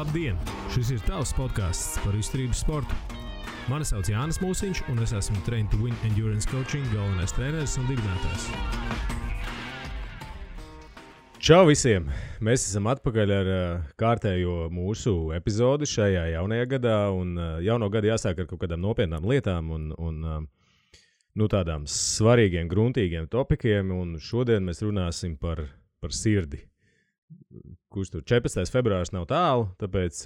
Labdien! Šis ir tavs podcasts par izturības sportu. Mani sauc Jānis Mūsiņš, un es esmu Train to Win Endurance Coaching galvenais treneris un dibinātājs. Čau visiem! Mēs esam atpakaļ ar kārtējo mūsu epizodi šajā jaunajā gadā, un jauno gadu jāsāk ar kaut kādām nopietnām lietām un tādām svarīgiem, gruntīgiem topikiem, un šodien mēs runāsim par sirdi. Kurš tur 14. februārs nav tālu, tāpēc,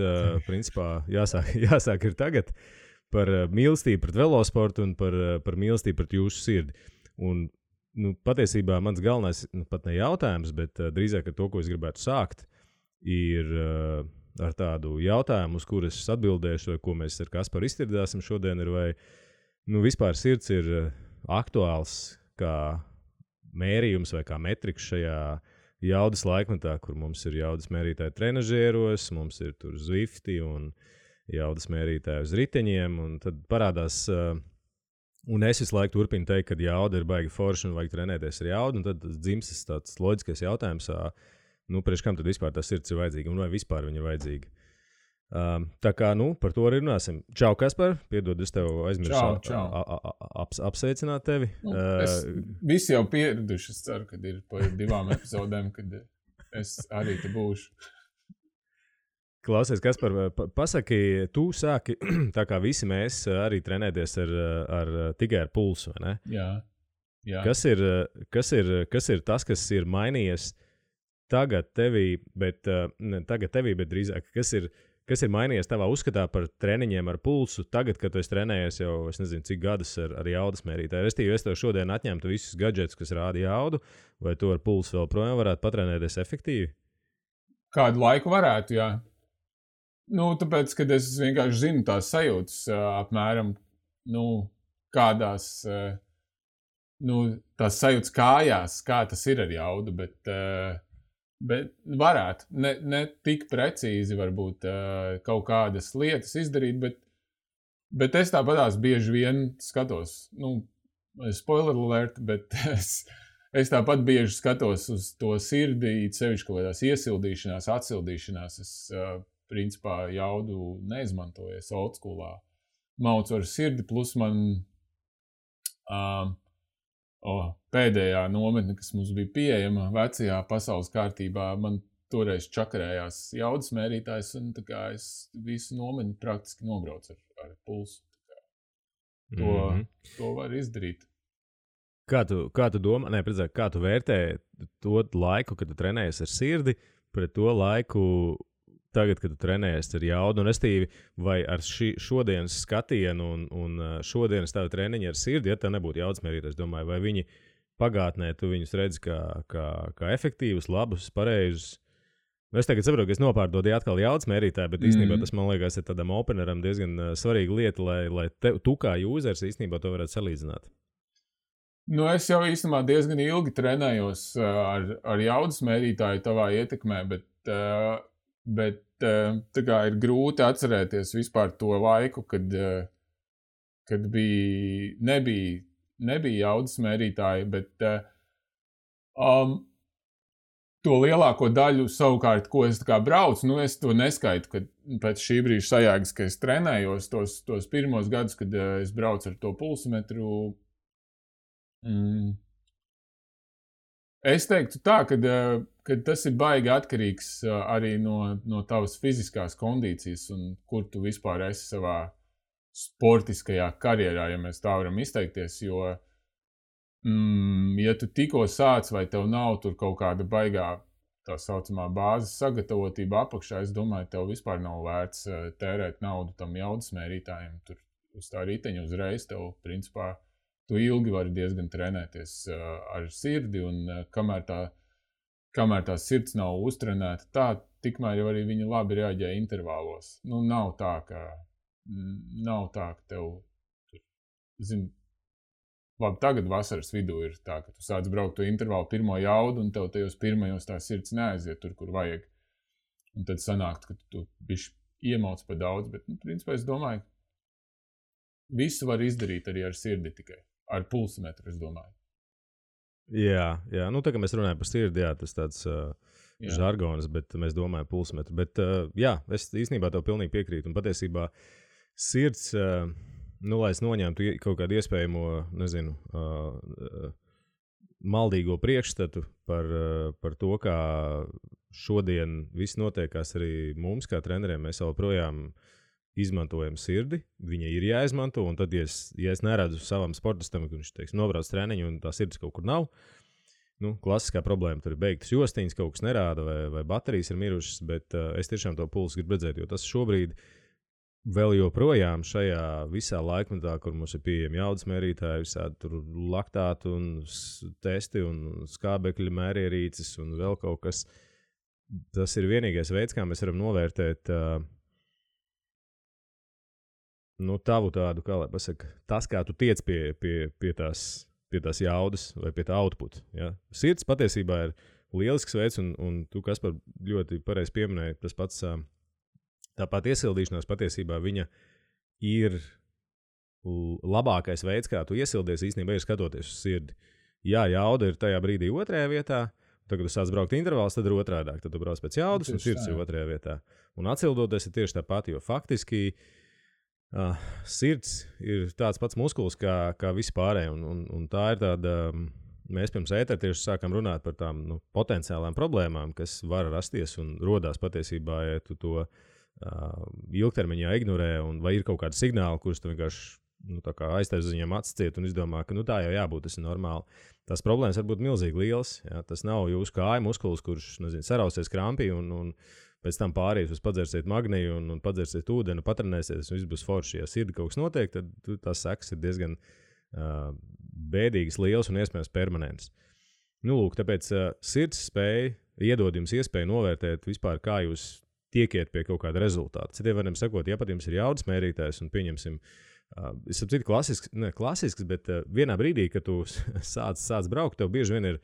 principā, jāsāk ir tagad par mīlestību pret velosportu un par mīlestību pret jūsu sirdi. Un, patiesībā mans galvenais, pat ne jautājums, bet drīzāk ar to, ko es gribētu sākt, ir ar tādu jautājumu, uz kuras es atbildēšu, vai ko mēs ar Kasparu iztirdāsim šodien, ir vai, vispār sirds ir aktuāls kā mērījums vai kā metriks šajā jaudas laikmetā, kur mums ir jaudas mērītāji trenažieros, mums ir tur Zwifti un jaudas mērītāji uz riteņiem, un tad parādās, un es visu laiku turpinu teikt, ka jauda ir baigi forša un vajag trenēties ar jaudu, un tad dzimstas tāds loģiskais jautājums, priekš kam tad vispār tā sirds ir vajadzīga, un vai vispār viņa ir vajadzīga. Tā kā, par to arī runāsim. Čau, Kaspar, piedod, es tev aizmirsu apsveicināt tevi. Visi jau pieraduši, es ceru, kad ir pa 2 epizodēm, kad es arī te būšu. Klausies, Kaspar, pasaki, tu sāki, tā kā visi mēs arī trenēties tikai ar pulsu, vai ne? Jā. Kas ir tas, kas ir mainījies tagad tevī, bet drīzāk, kas ir mainījies tavā uzskatā par treniņiem ar pulsu tagad, kad tu esi trenējies jau, es nezinu, cik gadus ar jaudas mērītāju. Restīvi, es tev šodien atņemtu visus gadžetus, kas rāda jaudu, vai tu ar pulsu vēl projām varētu patrenēties efektīvi? Kādu laiku varētu, jā. Tāpēc, kad es vienkārši zinu tās sajūtas apmēram, kādās, tās sajūtas kājās, kā tas ir ar jaudu, bet varētu, ne tik precīzi varbūt kaut kādas lietas izdarīt, bet es tāpatās bieži vien skatos, spoiler alert, bet es tāpat bieži skatos uz to sirdī, sevišķi kaut kādās iesildīšanās, atsildīšanās, es principā jaudu neizmantoju, es old schoolā maucu ar sirdi, plus man pēdējā nometne, kas mums bija pieejama vecajā pasaules kārtībā, man toreiz čakarējās jaudas mērītājs, un tā kā es visu nometni praktiski nobraucu ar pulsu. To var izdarīt. Kā tu domā, kā tu vērtē to laiku, kad tu trenējies ar sirdi, pret to laiku tagad, kad tu trenējies ar jaudu, un restīvi, vai ar šodienas skatienu un šodienas tavu treniņu ar sirdi, ja tā nebūtu jaudas mērītājs, domāju, vai viņi pagātnē tu viņus redzi kā efektīvus, labus, pareizus. Es tagad saprotu, ka es nopārdodīju atkal jaudas mērītāju, bet īstenībā tas, man liekas, ir tādam openeram diezgan svarīga lieta, lai tu kā jūzers īstenībā to varētu salīdzināt. Es jau īstenībā diezgan ilgi trenējos ar jaudas mērītāju tavā ietekmē, bet tā kā ir grūti atcerēties vispār to laiku, kad nebija jaudas mērītāji, bet to lielāko daļu savukārt, ko es tā kā braucu, es to neskaitu, kad pēc šī brīža sajēgas, ka es trenējos tos pirmos gadus, kad es braucu ar to pulsometru. Es teiktu tā, ka tas ir baigi atkarīgs arī no tavas fiziskās kondīcijas un kur tu vispār esi savā sportiskajā karjerā, ja mēs tā varam izteikties, jo, ja tu tikko sāc vai tev nav tur kaut kāda baigā tā saucamā bāzes sagatavotība apakšā, es domāju, tev vispār nav vērts tērēt naudu tam jaudas mērītājiem. Tur uz tā riteņa uzreiz tev, principā, tu ilgi vari diezgan trenēties ar sirdi, un kamēr tā sirds nav uztrenēta, tikmēr jau arī viņa labi reaģē intervālos. Nav tā, ka tev, labi, tagad vasaras vidū ir tā, ka tu sāc braukt to intervālu pirmo jaudu, un tev tajos pirmajos tā sirds neaiziet tur, kur vajag. Un tad sanākt, ka tu bišķi iemauc pa daudz, bet, principā, es domāju, visu var izdarīt arī ar sirdi tikai. Ar pulsometru, es domāju. Jā. Tā kā mēs runājam par sirdi, jā, tas tāds žargonas, bet mēs domājam pulsmetru. Bet jā, es īstenībā tev pilnīgi piekrītu. Un patiesībā sirds, lai es noņemtu kaut kādu iespējamo, nezinu, maldīgo priekšstatu par to, kā šodien viss notiekās arī mums, kā treneriem. Mēs joprojām izmantojam sirdi, viņa ir jāizmanto, un tad, ja es neredzu savam sportistam, ka viņš, teiksim, nobrauc treniņu un tā sirds kaut kur nav, klasiskā problēma tur ir beigtas jostiņas, kaut kas nerāda vai baterijas ir mirušas, bet es tiešām to pulsu gribu redzēt, jo tas šobrīd vēl joprojām šajā visā laikmetā, kur mums ir pieejami jaudas mērītāji, visādi tur laktātu un testi un skābekļa mērierīces un vēl kaut kas. Tas ir vienīgais veids, kā mēs varam novērtēt tavu tādu, kā lai pasaka, tas, kā tu tiec pie tās jaudas vai pie tā output. Ja? Sirds patiesībā ir lielisks veids, un tu, Kaspar, ļoti pareizi pieminēji, tas pats tāpat iesildīšanās patiesībā viņa ir labākais veids, kā tu iesildies īstenībā ir skatoties uz sirdi. Jā, jauda ir tajā brīdī otrajā vietā, tad, kad tu sāc braukt intervāls, tad ir otrādāk, tad tu brauc pēc jaudas un sirds ir otrajā vietā. Un atsildoties ir tieši tāpat, jo faktiski sirds ir tāds pats muskulis kā visi pārējie, un tā ir tāda, mēs pirms ētera tieši sākam runāt par tām potenciālām problēmām, kas var rasties un rodās patiesībā, ja tu to ilgtermiņā ignorē, un vai ir kaut kādi signāli, kurus tu vienkārši aiztais uz viņiem atsciet un izdomā, ka tā jau jābūt, tas ir normāli. Tās problēmas var būt milzīgi lielas, ja? Tas nav jūsu kāja muskulis, kurš, sarausies krampī un pēc tam pārējus uz padzersiet magniju un padzersiet ūdeni, patrenēsies, un viss būs forši. Ja sirdi kaut kas notiek, tad tās sekas ir diezgan bēdīgas, lielas un iespējams permanentas. Lūk, tāpēc sirds spēja iedod jums iespēju novērtēt vispār, kā jūs tiekiet pie kaut kāda rezultāta. Citiem varam sakot, ja pat jums ir jaudas mērītājs un pieņemsim, es saprotu, klasisks, bet vienā brīdī, kad tu sāc braukt, tev bieži vien ir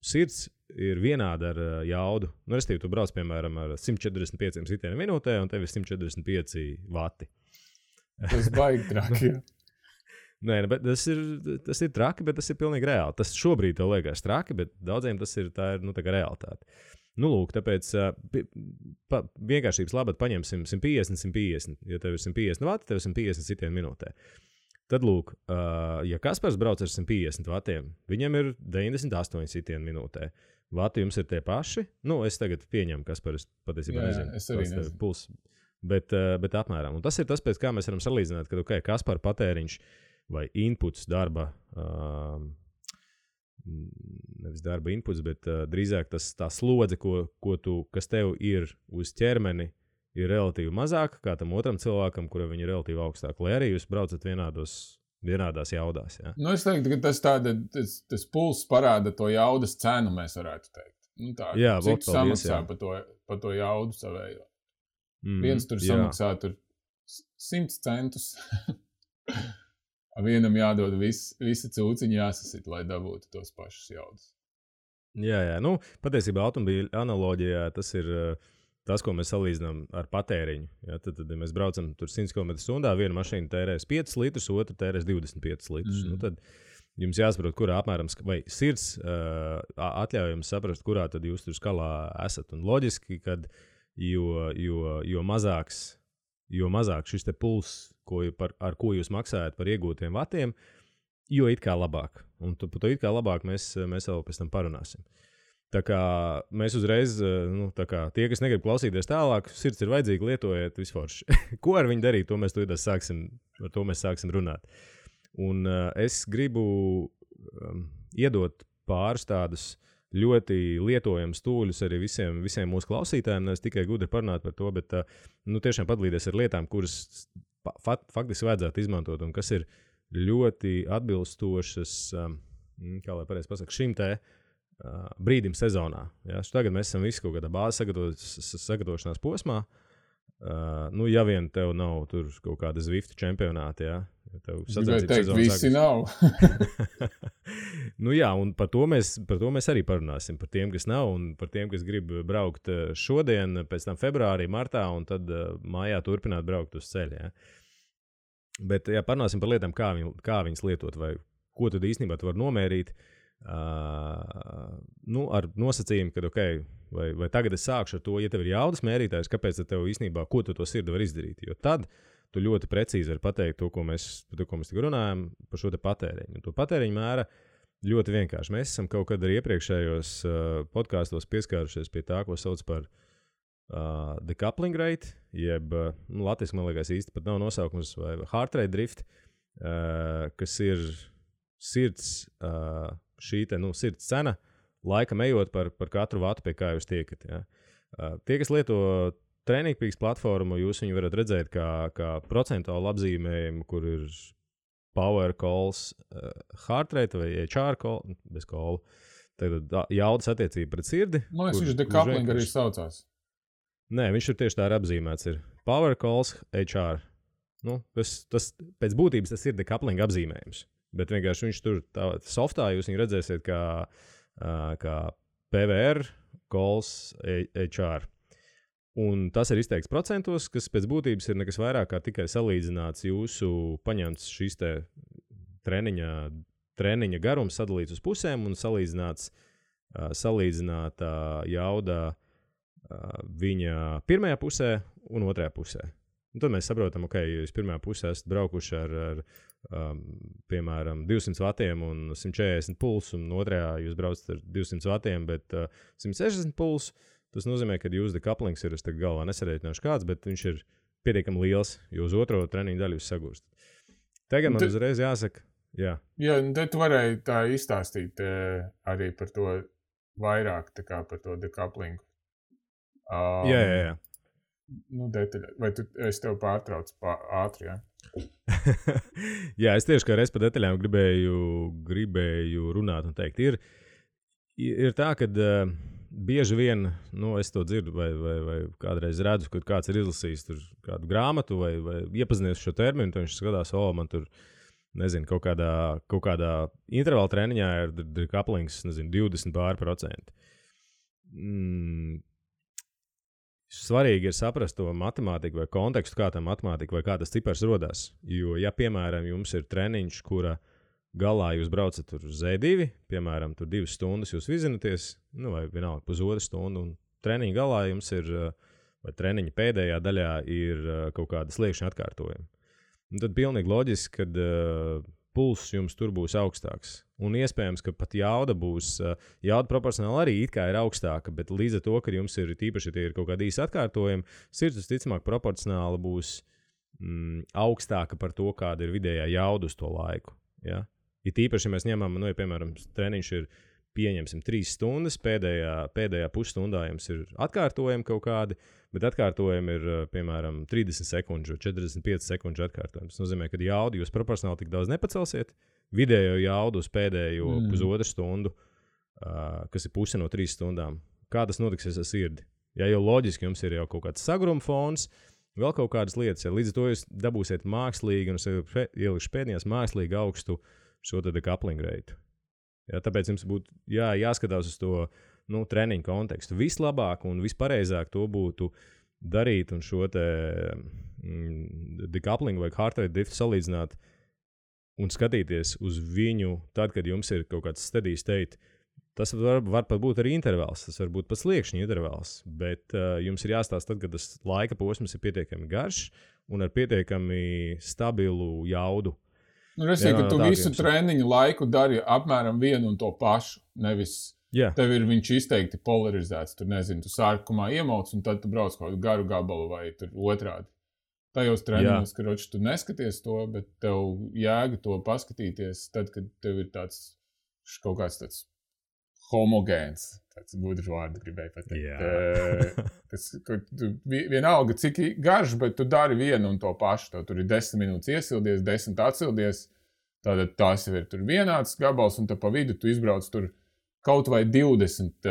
sirds ir vienāda ar jaudu. Restīvi, tu brauc, piemēram, ar 145 sitieniem minūtē, un tev ir 145 vati. Tas baigi traki. Nē, bet tas ir traki, bet tas ir pilnīgi reāli. Tas šobrīd tev liekas traki, bet daudziem tā ir tā kā realitāte. Lūk, tāpēc vienkāršības labad paņemsim 150. Ja tev ir 150 vati, tev ir 150 sitieni minūtē. Tad, lūk, ja Kaspars brauc ar 150 vatiem, viņam ir 98 sitieni minūtē. Vati jums ir tie paši. Es tagad pieņemu, Kaspars patiesībā nezinu. Es arī nezinu. Puls, bet apmēram. Un tas ir tas, pēc kā mēs varam salīdzināt, ka Kaspara patēriņš vai inputs darba, nevis darba inputs, bet drīzāk tā slodze, kas tev ir uz ķermeni, ir relatīvi mazāka kā tam otram cilvēkam, kuram viņa ir relatīvi augstāka, lai arī jūs braucat vienādās jaudās. Ja? Es teiktu, ka tas pulss parāda to jaudas cenu, mēs varētu teikt. Jā, cik tu samaksā par to jaudu savējo. Viens tur samaksā 100 centus. Vienam jādod visa cūciņa jāsasit, lai dabūtu tos pašus jaudas. Jā. Patiesībā automobīļa analoģijā tas ir tas, ko mēs salīdzinām ar patēriņu. Ja? Tad, ja mēs braucam tur 100 km/h, viena mašīna tērēs 5 litrus, otra tērēs 25 litrus. Tad jums jāsaprot, kurā apmēram, vai sirds atļauj jums saprast, kurā tad jūs tur skalā esat. Un loģiski, kad jo mazāks šis te pulss, ar ko jūs maksājat par iegūtiem vatiem, jo it kā labāk. Un par to it kā labāk mēs vēl pēc tam parunāsim. Tā kā mēs uzreiz, tie, kas negrib klausīties tālāk, sirds ir vajadzīga, lietojiet visforši. Ko ar viņu darīt, ar to mēs sāksim runāt. Un es gribu iedot pāris tādus ļoti lietojamus tūļus arī visiem mūsu klausītājiem. Es tikai gudri parunāt par to, bet tiešām padalīties ar lietām, kuras faktiski vajadzētu izmantot un kas ir ļoti atbilstošas, kā lai pareizi pasaka, šim te brīdim sezonā. Ja? Tagad mēs esam visi kaut kādā bāzes sagatavošanās posmā. Ja vien tev nav tur kaut kāda Zwift čempionāta, ja? Tev sacensības sezonas visi nav. Jā, un par to mēs arī parunāsim. Par tiem, kas nav, un par tiem, kas grib braukt šodien, pēc tam februārī, martā, un tad mājā turpināt braukt uz ceļa. Ja? Bet, parunāsim par lietām, kā viņas lietot, vai ko tad īstenībā tu var nomērīt. ar nosacījumu, ka, vai tagad es sākšu ar to, ja tev ir jaudas mērītājs, kāpēc tev īstenībā, ko tu to sirdi var izdarīt? Jo tad tu ļoti precīzi vari pateikt to, ko mēs tik runājam par šo te patēriņu. Un to patēriņu mēra ļoti vienkārši. Mēs esam kaut kad arī iepriekšējos podkāstos pieskārušies pie tā, ko sauc par decoupling rate, jeb, latviski, man liekas, īsti pat nav nosaukums, vai heart rate drift, kas ir sirds, šī te, sirds cena, laikam ejot par katru vatu, pie kā jūs tiekat. Ja? Tie, kas lieto Trainingpeaks platformu, jūs viņu varat redzēt kā procentuālu apzīmējumu, kur ir power calls, heart rate vai HR call, bez call, tagad jaudas attiecība pret sirdi. Man liekas, viņš decoupling arī saucās. Nē, viņš ir tieši tā apzīmēts. Ir power calls, HR. Tas pēc būtības tas ir decoupling apzīmējums. Bet vienkārši viņš tur softā jūs viņu redzēsiet kā PVR calls, HR. Un tas ir izteikts procentos, kas pēc būtības ir nekas vairāk kā tikai salīdzināts jūsu paņemts šīs te treniņa garums sadalīts uz pusēm un salīdzināta jauda viņa pirmajā pusē un otrajā pusē. Un tad mēs saprotam, ja jūs pirmajā pusē esat braukuši ar piemēram, 200 vatiem un 140 pulsu, un otrajā jūs braucat ar 200 vatiem, bet 160 pulsu. Tas nozīmē, ka jūsu decouplings ir, es tagad galvā nesareiķināšu kāds, bet viņš ir pietiekami liels, jo uz otro treniņu daļu jūs sagūstat. Tagad man uzreiz jāsaka, jā. Jā, te tu varēji tā izstāstīt arī par to vairāk, tā kā par to decouplingu. Jā. Detaļā. Vai es tev pārtraucu ātri, jā? Jā, es tieši kā reiz par detaļām gribēju runāt un teikt. Ir tā, ka bieži vien, es to dzirdu vai kādreiz redzu, kad kāds ir izlasījis tur kādu grāmatu vai iepazinies šo terminu, tad viņš skatās, man tur, nezinu, kaut kādā intervāla treniņā ir decouplings, 20%. Svarīgi ir saprast to matemātiku vai kontekstu, kā tā matemātika vai kā tas cipars rodās. Jo, ja, piemēram, jums ir treniņš, kura galā jūs braucat tur uz Z2, piemēram, tur 2 stundas jūs vizināties, vai vienalga pusotru stundu, un treniņa galā jums ir, vai treniņa pēdējā daļā ir kaut kāda sliekšņa atkārtojuma. Un tad pilnīgi loģiski, kad pulss jums tur būs augstāks. Un iespējams, ka pat jauda proporcionāli arī it kā ir augstāka, bet līdz ar to, ka jums ir tīpaši, ja tie ir kaut kādi īsi atkārtojumi, sirds visticamāk proporcionāli būs augstāka par to, kāda ir vidējā jauda uz to laiku. Ja? Ja tīpaši, ja mēs ņemam, ja, piemēram, treniņš ir, pieņemsim, 3 stundas, pēdējā pusstundā jums ir atkārtojumi kaut kādi, bet atkārtojumi ir, piemēram, 30 sekundžu, 45 sekundžu atkārtojumi. Tas nozīmē, ka jaudu jūs proporcionāli tik daudz nepacelsiet, vidējo jaudu uz pēdējo pusotru stundu, kas ir puse no 3 stundām. Kā tas notiksies ar sirdi? Ja jau loģiski jums ir jau kaut kāds sagruma fons, vēl kaut kādas lietas, ja līdz ar to jūs dabūsiet mākslīgi, un es ielikšu pēdējās mākslīgi augstu šo te decoupling rate. Ja, tāpēc jums būtu jāskatās uz to treniņu kontekstu. Vislabāk un vispareizāk to būtu darīt un šo te decoupling vai heart rate drift salīdzināt un skatīties uz viņu tad, kad jums ir kaut kāds steady state. Tas var pat būt arī intervāls, tas var būt pat sliekšņa intervāls, bet jums ir jāstāsta tad, kad tas laika posms ir pietiekami garš un ar pietiekami stabilu jaudu. Resīgi, ka tu visu treniņu laiku dari apmēram vienu un to pašu, nevis tev ir viņš izteikti polarizēts, tur nezinu, tu sākumā iemauc un tad tu brauc kaut kādu garu gabalu vai tur otrādi. Tajos treniņos, ka roči tu neskaties to, bet tev jēga to paskatīties tad, kad tev ir tāds kaut kāds tāds homogēns, tāds gudrs vārds gribēju pateikt. Vienalga, cik garš, bet tu dari vienu un to pašu. Tur ir 10 minūtes iesildies, 10 atsildies, tātad tās jau ir tur vienāds gabals, un tad pa vidu tu izbrauc tur kaut vai 20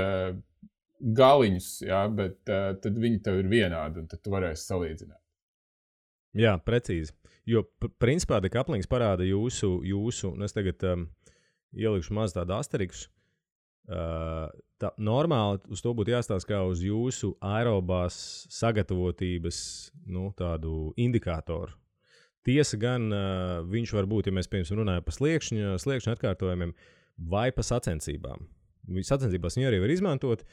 galiņus, ja, bet tad viņi tev ir vienādi, un tad tu varēsi salīdzināt. Jā, precīzi. Jo, principā, decouplings parāda jūsu, un es tagad ielikšu maz tādu asteriksu, tā normāli uz to būtu jāstāsta kā uz jūsu aerobās sagatavotības tādu indikātoru. Tiesa gan viņš var būt, ja mēs piemēram runājam par sliekšņa atkārtojumiem, vai pa sacensībām. Sacensībās viņu arī var izmantot.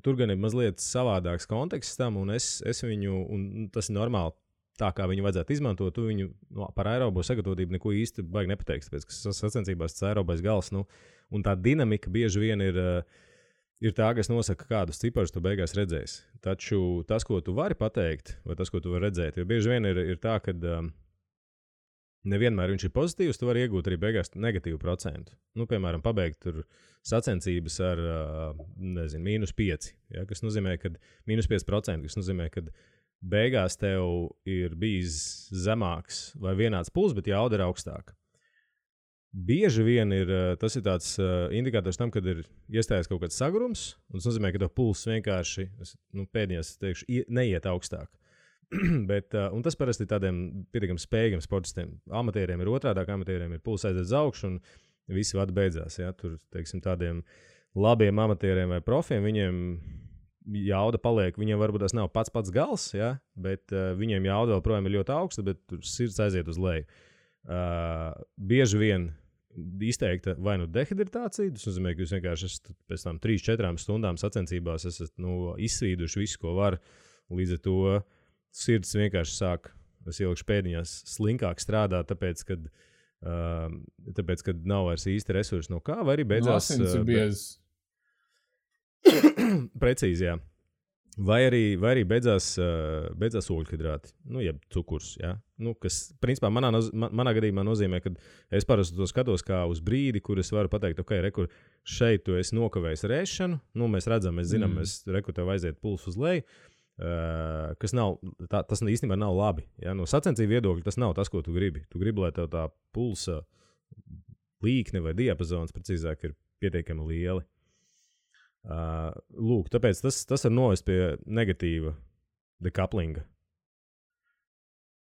Tur gan ir mazliet savādāks konteksts tam, un es viņu, un tas ir normāli, tā kā viņu vajadzētu izmantot, tu viņu par aerobo sagatavotību neko īsti baigi nepateiksi, tāpēc, ka sacensībās tas aerobais gals, un tā dinamika bieži vien ir tā, kas nosaka, kādus ciparus tu beigās redzēsi. Taču tas, ko tu vari pateikt, vai tas, ko tu vari redzēt, jo bieži vien ir tā, ka nevienmēr viņš ir pozitīvs, tu vari iegūt arī beigās negatīvu procentu. Piemēram, pabeigt tur sacensības ar, -5, ja, kas nozīmē, ka -5%, kas nozīmē, ka beigās tev ir bijis zemāks vai vienāds puls, bet jauda ir augstāka. Bieži vien tas ir tāds indikators tam, kad ir iestājies kaut kāds sagrums, un tas nozīmē, ka tev pulss vienkārši, pēdējās, teikšu, neiet augstāk. Un tas parasti ir tādiem pietiekami spējīgiem sportistiem. Amatieriem ir otrādāk, amatieriem ir pulss aiziet uz augšu, un visi vadi beidzās. Ja? Tur, teiksim, tādiem labiem amatieriem vai profiem, viņiem jauda paliek, viņiem varbūt tas nav pats gals, ja? Bet viņiem jauda vēl projām ir ļoti augsta, bet tur sirds aiziet uz leju. Bieži vien izteikta vai dehidritācija, tas nozīmē, ka jūs vienkārši esat pēc tam 3-4 stundām sacensībās esat izsvīduši visu, ko var, līdz ar to sirds vienkārši sāk, es ielikšu pēdiņās, slinkāk strādāt, tāpēc, kad nav vairs īsti resursi no kā, vai arī beidzās... Asins ir biezs. Precīzi, jā. Vai arī beidzās ogļhidrāti, jeb cukurs, jā. Kas, principā, manā gadījumā nozīmē, ka es parasti to skatos kā uz brīdi, kur es varu pateikt, ok, rekur, šeit tu esi nokavējis rēšanu, mēs redzam, mēs zinām, rekur tev aiziet pulss uz leju, kas nav, tas īstenībā nav labi. Ja? No sacensību viedokļa tas nav tas, ko tu gribi. Tu gribi, lai tev tā pulsa līkne vai diapazons, precīzāk, ir pietiekami lieli. Lūk, tāpēc tas var novest pie negatīva dekaplinga.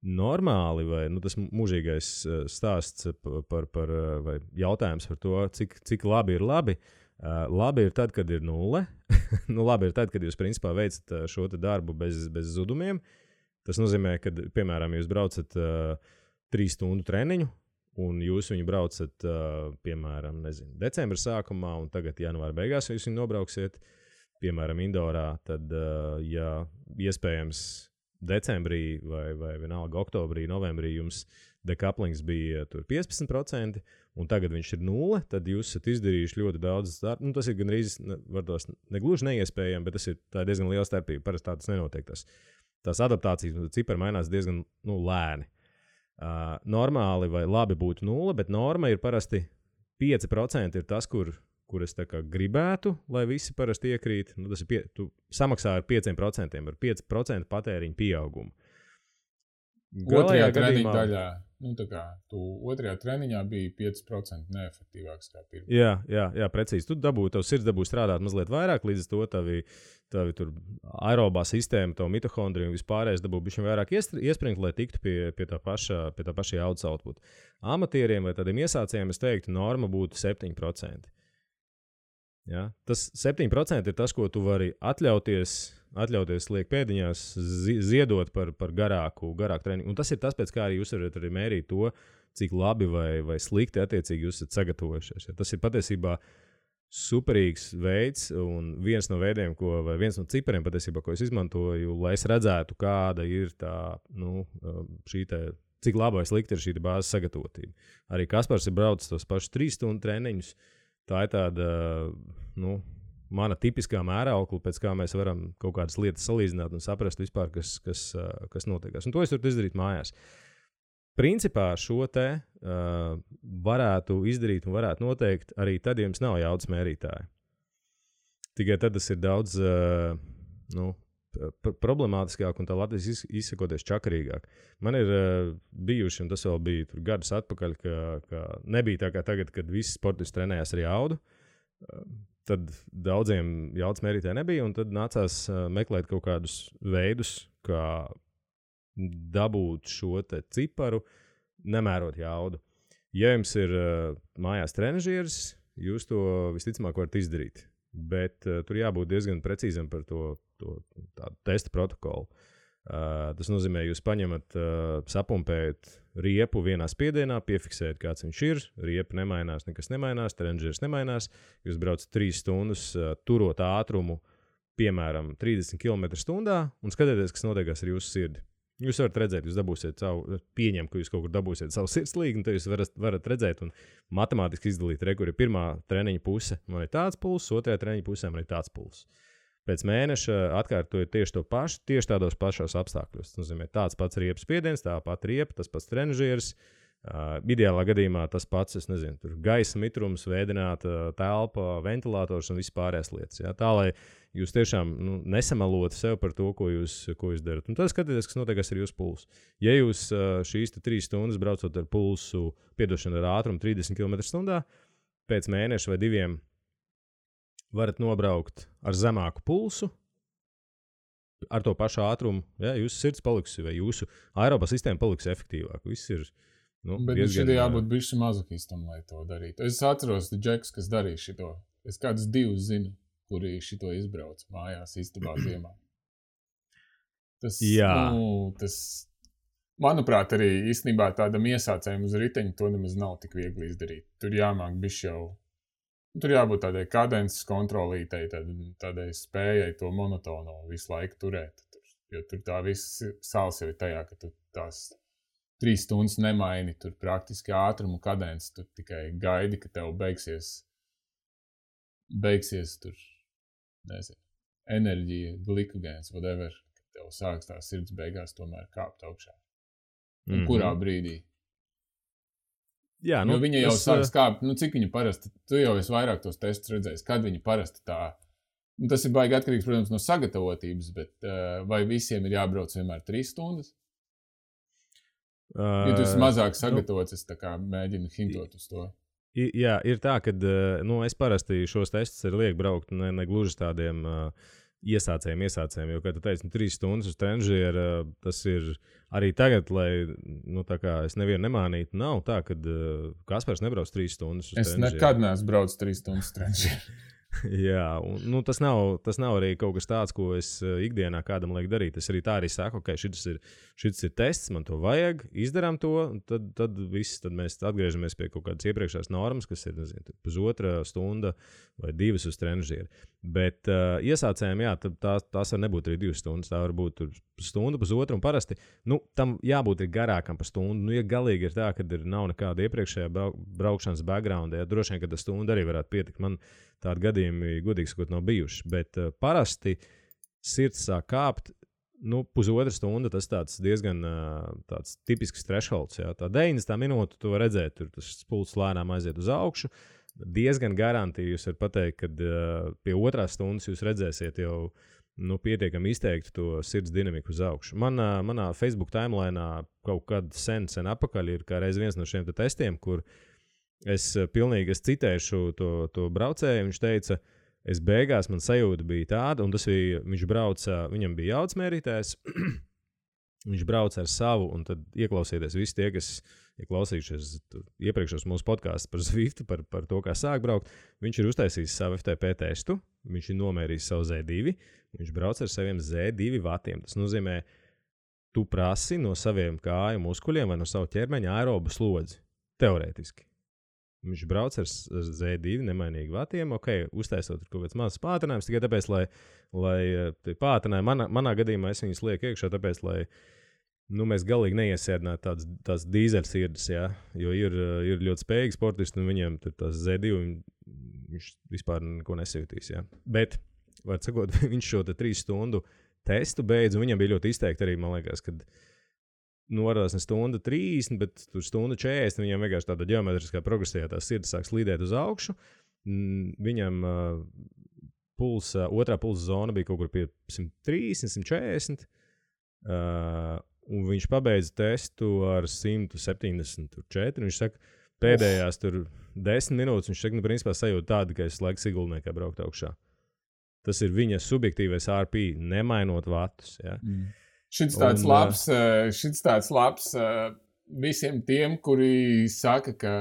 Normāli, vai tas mūžīgais stāsts vai jautājums par to, cik labi ir labi. Labi ir tad, kad ir 0. Labi ir tad, kad jūs principā veicat šo darbu bez zudumiem. Tas nozīmē, ka, piemēram, jūs braucat 3 stundu treniņu, un jūs viņu braucat, piemēram, decembra sākumā, un tagad janvāra beigās jūs viņu nobrauksiet, piemēram, indorā, tad, ja iespējams decembrī vai vienalga oktobrī, novembrī jums dekaplings bija tur 15%, un tagad viņš ir 0, tad jūs esat izdarījuši ļoti daudz darbu. Tas ir gandrīz, varbūt negluži neiespējami, bet tā ir diezgan liela starpība. Parasti tā tas nenotiek. Tās adaptācijas cipari mainās diezgan lēni. Normāli vai labi būtu 0, bet norma ir parasti 5% ir tas, kur es tā kā gribētu, lai visi parasti iekrīt. Tas ir tu samaksā ar 5%, ar 5% patēriņu pieaugumu. Otrajā treniņa daļā, tā kā tu otrajā treniņā bija 5% neefektīvāks kā pirmā. Jā, precīzi. Tu tavs sirds dabū strādāt mazliet vairāk, līdz to tavi tur aerobā sistēma, tavu mitohondriju un vispārējais dabū bišķiņ vairāk iespringt, lai tiktu pie tā paša jaudas output. Amatieriem vai tādiem iesācējiem es teiktu, norma būtu 7%. Ja? Tas 7% ir tas, ko tu vari atļauties liek pēdiņās, ziedot par garāku treniņu. Un tas ir tas, pēc kā arī jūs varat arī mērīt to, cik labi vai slikti attiecīgi jūs esat sagatavojušies. Ja? Tas ir patiesībā superīgs veids un viens no veidiem, viens no cipariem patiesībā, ko es izmantoju, lai es redzētu, kāda ir tā, cik labi vai slikti ir šī bāzes sagatavotība. Arī Kaspars ir braucis tos pašus 3 stundu treniņus. Tā ir tāda, mana tipiskā mēraukla, pēc kā mēs varam kaut kādas lietas salīdzināt un saprast vispār, kas notiekās. Un to es varu izdarīt mājās. Principā šo te varētu izdarīt un varētu noteikt arī tad, ja jums nav jaudas mērītāji. Tikai tad tas ir daudz problemātiskāk un tā Latvijas izsakoties čakarīgāk. Man ir bijuši, un tas vēl bija tur gadus atpakaļ, ka nebija tā kā tagad, kad visi sportisti trenējās ar jaudu. Tad daudziem jaudas mērītāji nebija, un tad nācās meklēt kaut kādus veidus, kā dabūt šo te ciparu, nemērot jaudu. Ja jums ir mājās trenažieris, jūs to visticamāk varat izdarīt. Bet tur jābūt diezgan precīzam par to tādu testa protokolu. Tas nozīmē, jūs paņemat, sapumpējat riepu vienā spiedienā, piefiksējat, kāds viņš ir, riepa nemainās, nekas nemainās, trendžers nemainās, jūs braucat 3 stundas, turot ātrumu, piemēram, 30 km/h un skatieties, kas notiekās ar jūsu sirdi. Jūs varat redzēt, jūs dabūsiet savu, pieņem, ka jūs kaut kur dabūsiet savu sirdslīgu, un tad jūs varat redzēt un matemātiski izdalīt, kur ir pirmā treniņa puse, man ir tāds pulss, otrajā treniņa pusē man ir tāds pulss. Pēc mēneša atkārtojot tieši to pašu, tieši tādos pašos apstākļos. Tas nozīmē tāds pats riepas spiediens, tā pati riepa, tas pats trenižieris. Ideālā gadījumā tas pats, es nezinu, tur gaisa mitrums, vēdināta telpa, ventilators un vispārējās lietas. Ja? Tā, lai jūs tiešām nesamalotu sev par to, ko jūs darat. Un tad skatieties, kas notiek ar jūsu pulsu. Ja jūs šīs 3 stundas braucot ar pulsu, ar ātrumu 30 km/h, pēc mēneša vai 2 varat nobraukt ar zemāku pulsu, ar to pašu ātrumu, ja, jūsu sirds paliks, vai jūsu aerobā sistēma paliks efektīvāk. Viss ir, bet diezgan... šitie jābūt bišķi mazokistam, lai to darītu. Es atceros, Džeks, kas darīja šito. Es kādus 2 zinu, kuri šito izbrauc mājās istabā ziemā. Tas, manuprāt, arī īstenībā tādam iesācējam uz riteņa to nemaz nav tik viegli izdarīt. Tur jāmāk bišķi jau... Tur jābūt tādai kadences kontrolītei, tādai spējai to monotonu visu laiku turēt. Jo tur tā viss sāls jau ir tajā, ka tu tās 3 stundas nemaini, tur praktiski ātrumu kadences, tu tikai gaidi, ka tev beigsies tur, nezinu, enerģija, glikogēns, whatever, ka tev sāks tā sirds beigās tomēr kāpt augšā. Un kurā brīdī? Jā, jo viņa jau sāk skāpt, cik viņa parasti, tu jau esi vairāk tos testus redzējis, kad viņa parasti tā, tas ir baigi atkarīgs, protams, no sagatavotības, bet vai visiem ir jābrauc vienmēr 3 stundas? Ja tu esi mazāk sagatavots, es tā kā mēģinu hintot uz to. Jā, ir tā, ka es parasti šos testus arī lieku braukt ne gluži tādiem iesācējiem, jo, kā tu teici, 3 stundas uz trenižieru, tas ir arī tagad, lai, tā kā es nevienu nemānītu, nav tā, ka Kaspars nebrauc 3 stundas uz trenižieru. Es nekad neesmu braucis 3 stundas uz trenižieru. Jā, un tas nav arī kaut kas tāds, ko es ikdienā kādam lieku darīt. Es arī tā arī saku, ok, šis ir tests, man to vajag, izdarām to, un tad mēs atgriežamies pie kaut kādas iepriekšējās normas, kas ir, nezinu, 1,5 stunda vai 2 uz trenižieru. Bet iesācējiem, jā, tās var nebūt arī 2 stundas, tā var būt stunda, 1,5, un parasti, tam jābūt ir garākam par stundu. Ja galīgi ir tā, ka nav nekāda iepriekšējā braukšanas backgrounda, ja droši vien, ka tā stunda arī varētu pietikt. Man tādi gadījumi, godīgi sakot, nav bijuši. Bet parasti sirds sāk kāpt, 1,5 stunda, tas tāds diezgan tāds tipisks thresholds. Jā. Tā 90 minūte, tu vari redzēt, tur tas pulss lēnām aiziet uz augšu. Diezgan garantīgi jūs varat pateikt, ka pie 2 stundas jūs redzēsiet jau pietiekami izteikti to sirds dinamiku uz augšu. Manā Facebook timelainā kaut kad sen apakaļ ir kā reiz viens no šiem testiem, kur es citēšu to braucēju. Viņš teica, es beigās man sajūta bija tāda, un tas bija, viņš brauca, viņam bija jaudsmērītājs, viņš brauca ar savu, un tad ieklausieties visi tie, kas ir klausījušies iepriekšos mūsu podkāstus par Zwiftu, par to, kā sāk braukt. Viņš ir uztaisījis savu FTP testu, viņš ir nomērījis savu Z2, viņš brauc ar saviem Z2 vatiem. Tas nozīmē, tu prasi no saviem kāju muskuļiem vai no savu ķermeņa aerobu slodzi, teorētiski. Viņš brauc ar Z2 nemainīgi vatiem, uztaisot kaut kāds mazs pātrinājums, tikai tāpēc, lai pātrinājumi, manā gadījumā es viņus lieku iekšā, tāpēc, lai mēs galīgi neiesēdinātu tās dīzeļsirdes, jā, jo ir ļoti spējīgi sportisti, un viņiem tās Z2 viņš vispār neko nesajūtīs, jā. Bet, var sakot, viņš šo 3 stundu testu beidz, un viņam bija ļoti izteikti arī, man liekas, kad norādās ne stunda 30, bet tur stunda 40, viņam vienkārši tāda ģeometriskā progresijā tā sirds sāk slīdēt uz augšu. Viņam otrā pulsa zona bija kaut kur pie 130, 140, un viņš pabeidza testu ar 174. Viņš saka, pēdējās tur 10 minūtes, viņš saka, principā sajūta tāda, ka es laiks iguldniekā braukt augšā. Tas ir viņa subjektīvais RP, nemainot vatus, jā. Šits tāds labs visiem tiem, kuri saka, ka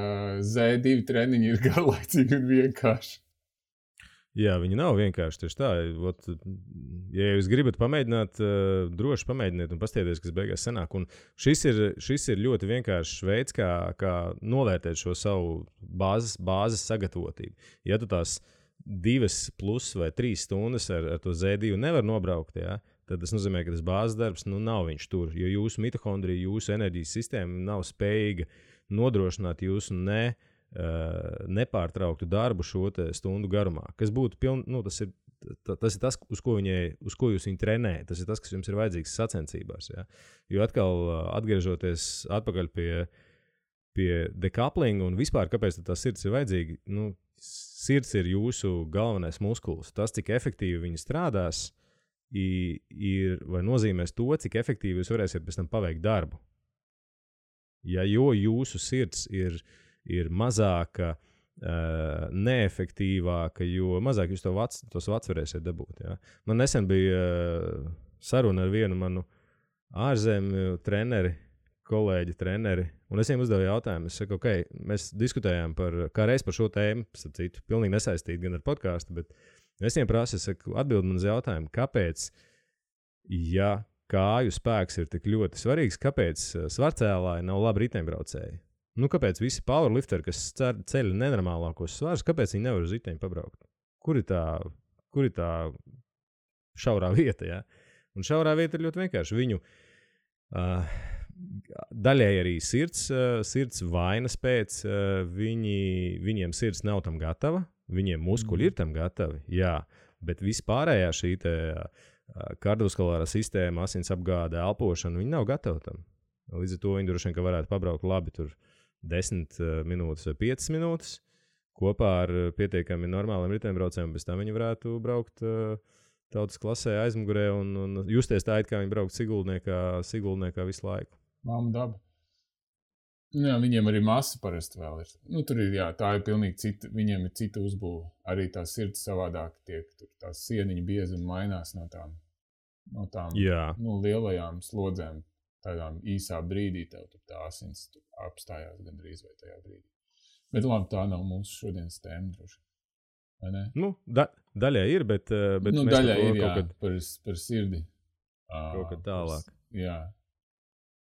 Z2 treniņi ir garlaicīgi un vienkārši. Jā, viņi nav vienkārši tieši tā. Ot, ja jūs gribat pamēģināt, droši pamēģiniet un paskatieties, kas beigās sanāk. Un šis ir ļoti vienkāršs veids, kā novērtēt šo savu bāzes sagatavotību. Ja tu tās 2+ vai 3 stundas ar to Z2 nevar nobraukt, ja, tad tas nozīmē, ka tas bāzes darbs nav viņš tur. Jo jūsu mitohondrija, jūsu enerģijas sistēma nav spējīga nodrošināt jūsu nepārtrauktu darbu šo stundu garumā. Kas būtu tas ir tas, uz ko jūs viņu trenējat. Tas ir tas, kas jums ir vajadzīgs sacensībās. Ja? Jo atkal atgriežoties atpakaļ pie decouplinga un vispār, kāpēc tā sirds ir vajadzīga, sirds ir jūsu galvenais muskulis. Tas, cik efektīvi viņi strādās, vai nozīmēs to, cik efektīvi jūs varēsiet pēc tam paveikt darbu. Ja, jo jūsu sirds ir mazāka, neefektīvāka, jo mazāk jūs tos vats varēsiet dabūt. Ja? Man nesen bija saruna ar vienu manu ārzemju kolēģi treneri, un es viņiem uzdevu jautājumu. Es saku, mēs diskutējām kā reiz par šo tēmu, citu, pilnīgi nesaistīt gan ar podcastu, bet es viņiem prasu, atbild man uz jautājumu, kāpēc, ja kāju spēks ir tik ļoti svarīgs, kāpēc svarcēlāji nav labi riteņbraucēji? Kāpēc visi powerlifteri, kas ceļ nenormālākos svarus, kāpēc viņi nevar uz riteņu pabraukt? Kur ir tā šaurā vieta? Ja? Un šaurā vieta ir ļoti vienkārši. Viņu daļēji arī sirds vainas pēc, viņiem sirds nav tam gatava, viņiem muskuļi ir tam gatavi, jā, bet vispārējā šī kardiovaskulārā sistēma, asins apgāde, elpošana, viņi nav gatavi tam. Līdz ar to viņi droši vien, ka varētu pabraukt labi tur 10 minūtes vai 5 minūtes kopā ar pietiekami normāliem riteņbraucējiem, bez tam viņi varētu braukt tautas klasē aizmugurē un justies tā, kā viņi braukt Sigultniekā visu laiku. Māma daba. Jā, viņiem arī masa parasti vēl ir. Tur ir, jā, tā ir pilnīgi cita, viņiem ir cita uzbūve. Arī tā sirds savādāk tiek, tur tās sieniņa biezuma mainās no tām lielajām slodzēm. Tādām īsā brīdī tev tā asins apstājās gandrīz vai tajā brīdī. Bet labi, tā nav mūsu šodienas tēma droši. Vai ne? Daļai ir, bet mēs daļai ir, jā, par sirdi. Kaut kad tālāk. Jā.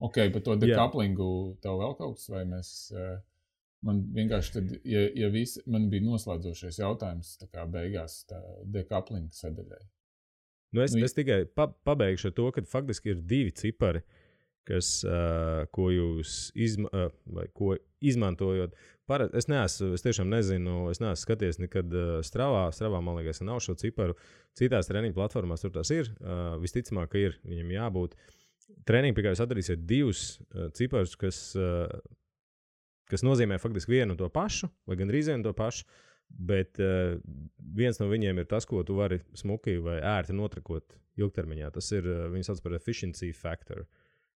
Ok, par to decouplingu tev vēl kaut kas, vai mēs... Man vienkārši tad, man bija noslēdzošais jautājums tā kā beigās tā decouplinga sadaļai. Es tikai pabeigšu ar to, ka faktiski ir 2 cipari, ko jūs izmantojot. Es tiešām nezinu, es neesmu skaties nekad Stravā, man liekas, nav šo ciparu. Citās treniņu platformās tur tās ir, visticamāk, ka ir, viņam jābūt. Treniņu, pie kā jūs atradīsiet 2 ciparus, kas nozīmē faktiski vienu to pašu, vai gandrīz vienu to pašu, bet viens no viņiem ir tas, ko tu vari smuki vai ērti notrakot ilgtermiņā. Tas ir, viņi sauc par efficiency factor.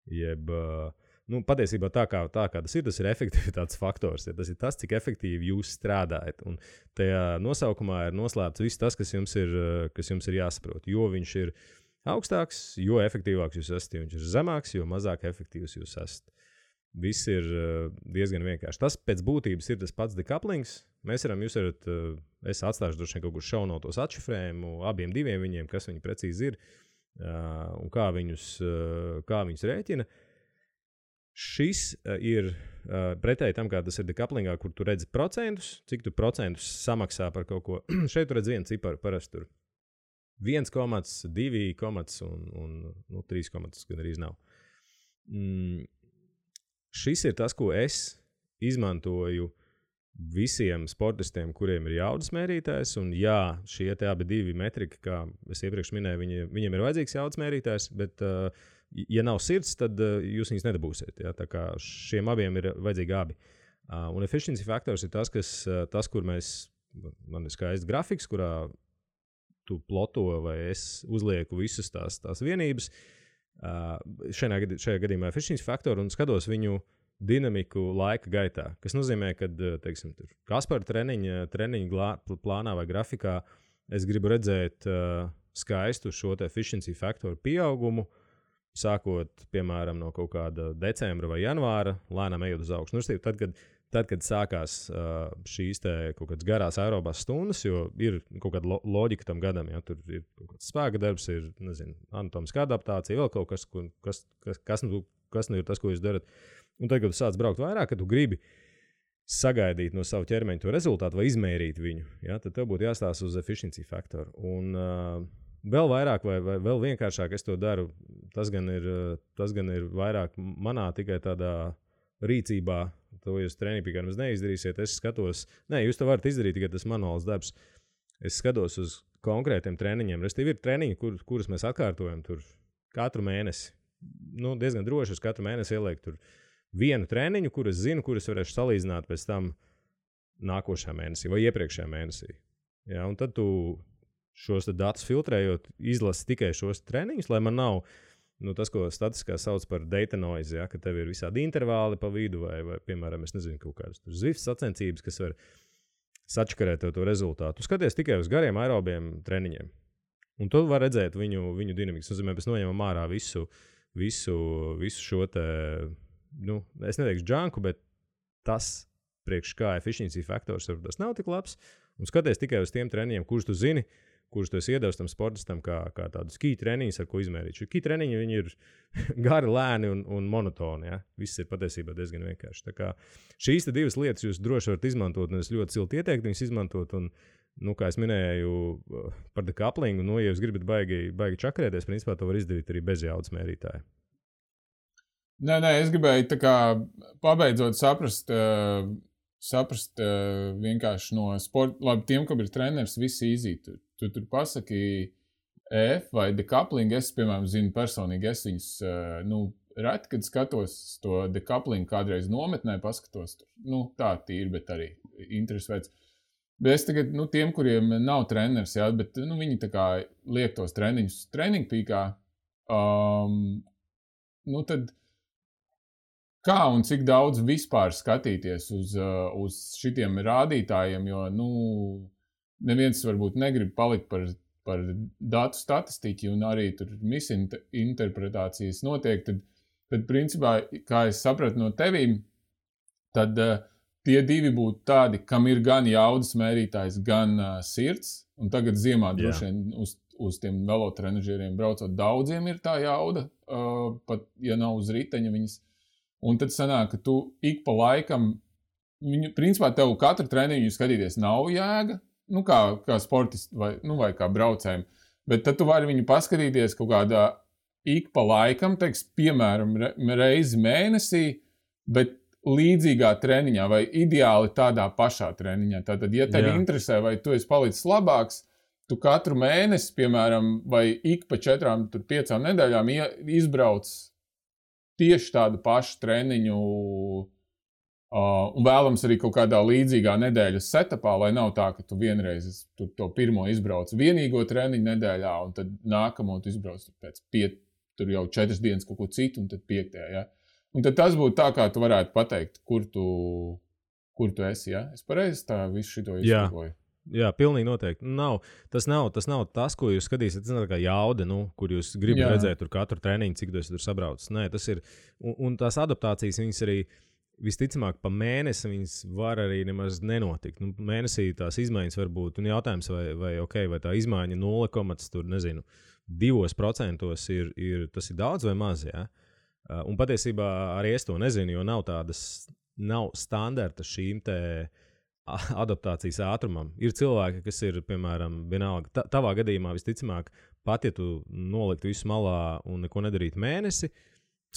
Jeb, patiesībā tā kā tas ir efektivitātes faktors. Ja, tas ir tas, cik efektīvi jūs strādājat. Un tajā nosaukumā ir noslēpts viss tas, kas jums ir jāsaprot. Jo viņš ir augstāks, jo efektīvāks jūs esat. Jo viņš ir zemāks, jo mazāk efektīvs jūs esat. Viss ir diezgan vienkārši. Tas pēc būtības ir tas pats decouplings. Jūs varat, es atstāšu droši vien kaut kur šaunotos atšifrējumu abiem diviem viņiem, kas viņi precīzi ir. Un kā viņus rēķina. Šis ir pretēji tam, kā tas ir decouplingā, kur tu redzi procentus, cik tu procentus samaksā par kaut ko. Šeit tu redzi vienu ciparu, parasti tur 1, 2, un 3, gan arī nav. Šis ir tas, ko es izmantoju visiem sportistiem, kuriem ir jaudas mērītājs, un jā, šie abi 2 metriki, kā es iepriekš minēju, viņiem ir vajadzīgs jaudas mērītājs, bet, ja nav sirds, tad jūs viņus nedabūsiet. Ja? Tā kā šiem abiem ir vajadzīgi abi. Un efficiency faktors ir tas, kur man ir skaists grafiks, kurā tu ploto vai es uzlieku visas tās vienības. Šajā gadījumā efficiency faktoru un skatos viņu dinamiku laika gaitā, kas nozīmē, ka, teiksim, Kaspara treniņa plānā vai grafikā es gribu redzēt skaistu šo efficiency faktoru pieaugumu, sākot, piemēram, no kaut kāda decembra vai janvāra, lēnām ejot uz augšu. Tad, kad tad, kad sākās šīs kaut kādas garās aerobās stundas, jo ir kaut kāda loģika tam gadam, ja tur ir kaut kāds spēka darbs, ir, nezinu, anatomiskā adaptācija, vēl kaut kas, kas nu ir tas, ko jūs darat. Un tad, kad tu sāc braukt vairāk, kad tu gribi sagaidīt no savu ķermeņa to rezultātu vai izmērīt viņu, ja, tad tev būtu jāstāsta uz efficiency faktoru. Un vēl vairāk vai vēl vienkāršāk es to daru, tas gan ir vairāk manā tikai tādā rīcībā. To jūs treniņā pie kā nemaz neizdarīsiet. Es skatos, jūs to varat izdarīt, tikai tas manuāls darbs. Es skatos uz konkrētiem treniņiem. Restīvi ir treniņi, kurus mēs atkārtojam tur katru mēnesi. Diezgan droši uz katru mēnesi ieliek tur vienu treniņu, kur es zinu, kurus varēšu salīdzināt pēc tam nākošajā mēnesī vai iepriekšējā mēnesī. Ja, un tad tu šos datus filtrējot, izlasi tikai šos treniņus, lai man nav tas, ko statiskā sauc par data noise, ja, ka tev ir visādi intervāli pa vidu vai piemēram, es nezinu, kaut kādas Zwift sacensības, kas var sačakarēt to rezultātu. Tu skaties tikai uz gariem aerobiem treniņiem. Un tu var redzēt viņu dinamiku. Tas nozīmē, mēs noņemam ārā visu šo te, es neteikšu džanku, bet tas priekš kā efficiency faktors varbūt tas nav tik labs. Un skaties tikai uz tiem treniņiem, kurus tu zini, kurus tu esi iedevis tam sportistam kā tādu ski treniņus, ar ko izmērīt. Šo ski treniņi, viņi ir gari, lēni un monotoni. Ja? Viss ir patiesībā diezgan vienkārši. Tā kā šīs divas lietas jūs droši varat izmantot, un es ļoti silti ieteiktu viņus izmantot. Un, kā es minēju par decouplingu, ja jūs gribat baigi čakarēties, principā to var izdarīt arī bez jaudas mērītāja. Nē, es gribēju tā kā pabeidzot saprast vienkārši no sporta, labi, tiem, kam ir treneris, visi izīt. Tu tur pasaki EF vai decoupling, es, piemēram, zinu personīgi, es viņus, reti, kad skatos to decoupling kādreiz nometnē, paskatos tur, tā tīri, bet arī interesi veids. Bet es tagad, tiem, kuriem nav treneris, jā, bet, viņi tā kā liek tos treniņus treniņu pīkā, tad kā un cik daudz vispār skatīties uz šitiem rādītājiem, jo, neviens varbūt negrib palikt par datu statistiku un arī tur misinterpretācijas notiek, tad principā, kā es sapratu no tevīm, tad tie divi būtu tādi, kam ir gan jaudas mērītājs, gan sirds, un tagad ziemā droši vien uz tiem velotrenažieriem braucot daudziem ir tā jauda, pat ja nav uz riteņa viņas. Un tad sanāk, ka tu ik pa laikam, principā tev katru treniņu skatīties nav jēga, kā sportisti vai kā braucējiem, bet tad tu vari viņu paskatīties kaut kādā ik pa laikam, piemēram, reizi mēnesī, bet līdzīgā treniņā vai ideāli tādā pašā treniņā. Tātad, ja tevi interesē, vai tu esi palicis labāks, tu katru mēnesi, piemēram, vai ik pa 4-5 nedēļām izbrauc tieši tādu pašu treniņu un vēlams arī kaut kādā līdzīgā nedēļas setupā, lai nav tā, ka tu vienreiz to pirmo izbrauc vienīgo treniņu nedēļā, un tad nākamo tu izbrauc pēc tur jau 4 dienas kaut ko citu, un tad 5. Ja? Un tad tas būtu tā, kā tu varētu pateikt, kur tu esi. Ja? Es pareizi tā visu šito izskakoju. Jā, pilnīgi noteikti. Tas nav tas, ko jūs skatīsiet. Tas nav tā kā jauda, kur jūs gribat redzēt tur katru treniņu, cik tu esi tur sabraucis. Nē, tas ir. Un tās adaptācijas, viņas arī visticamāk pa mēnesi viņas var arī nemaz nenotikt. Mēnesī tās izmaiņas var būt. Un jautājums, vai tā izmaiņa 0,2% tas ir daudz vai maz. Ja? Un patiesībā arī es to nezinu, jo nav standarta šīm te adaptācijas ātrumam. Ir cilvēki, kas ir, piemēram, vienalga, tavā gadījumā visticamāk, pat ja tu noliktu visu malā un neko nedarītu mēnesi,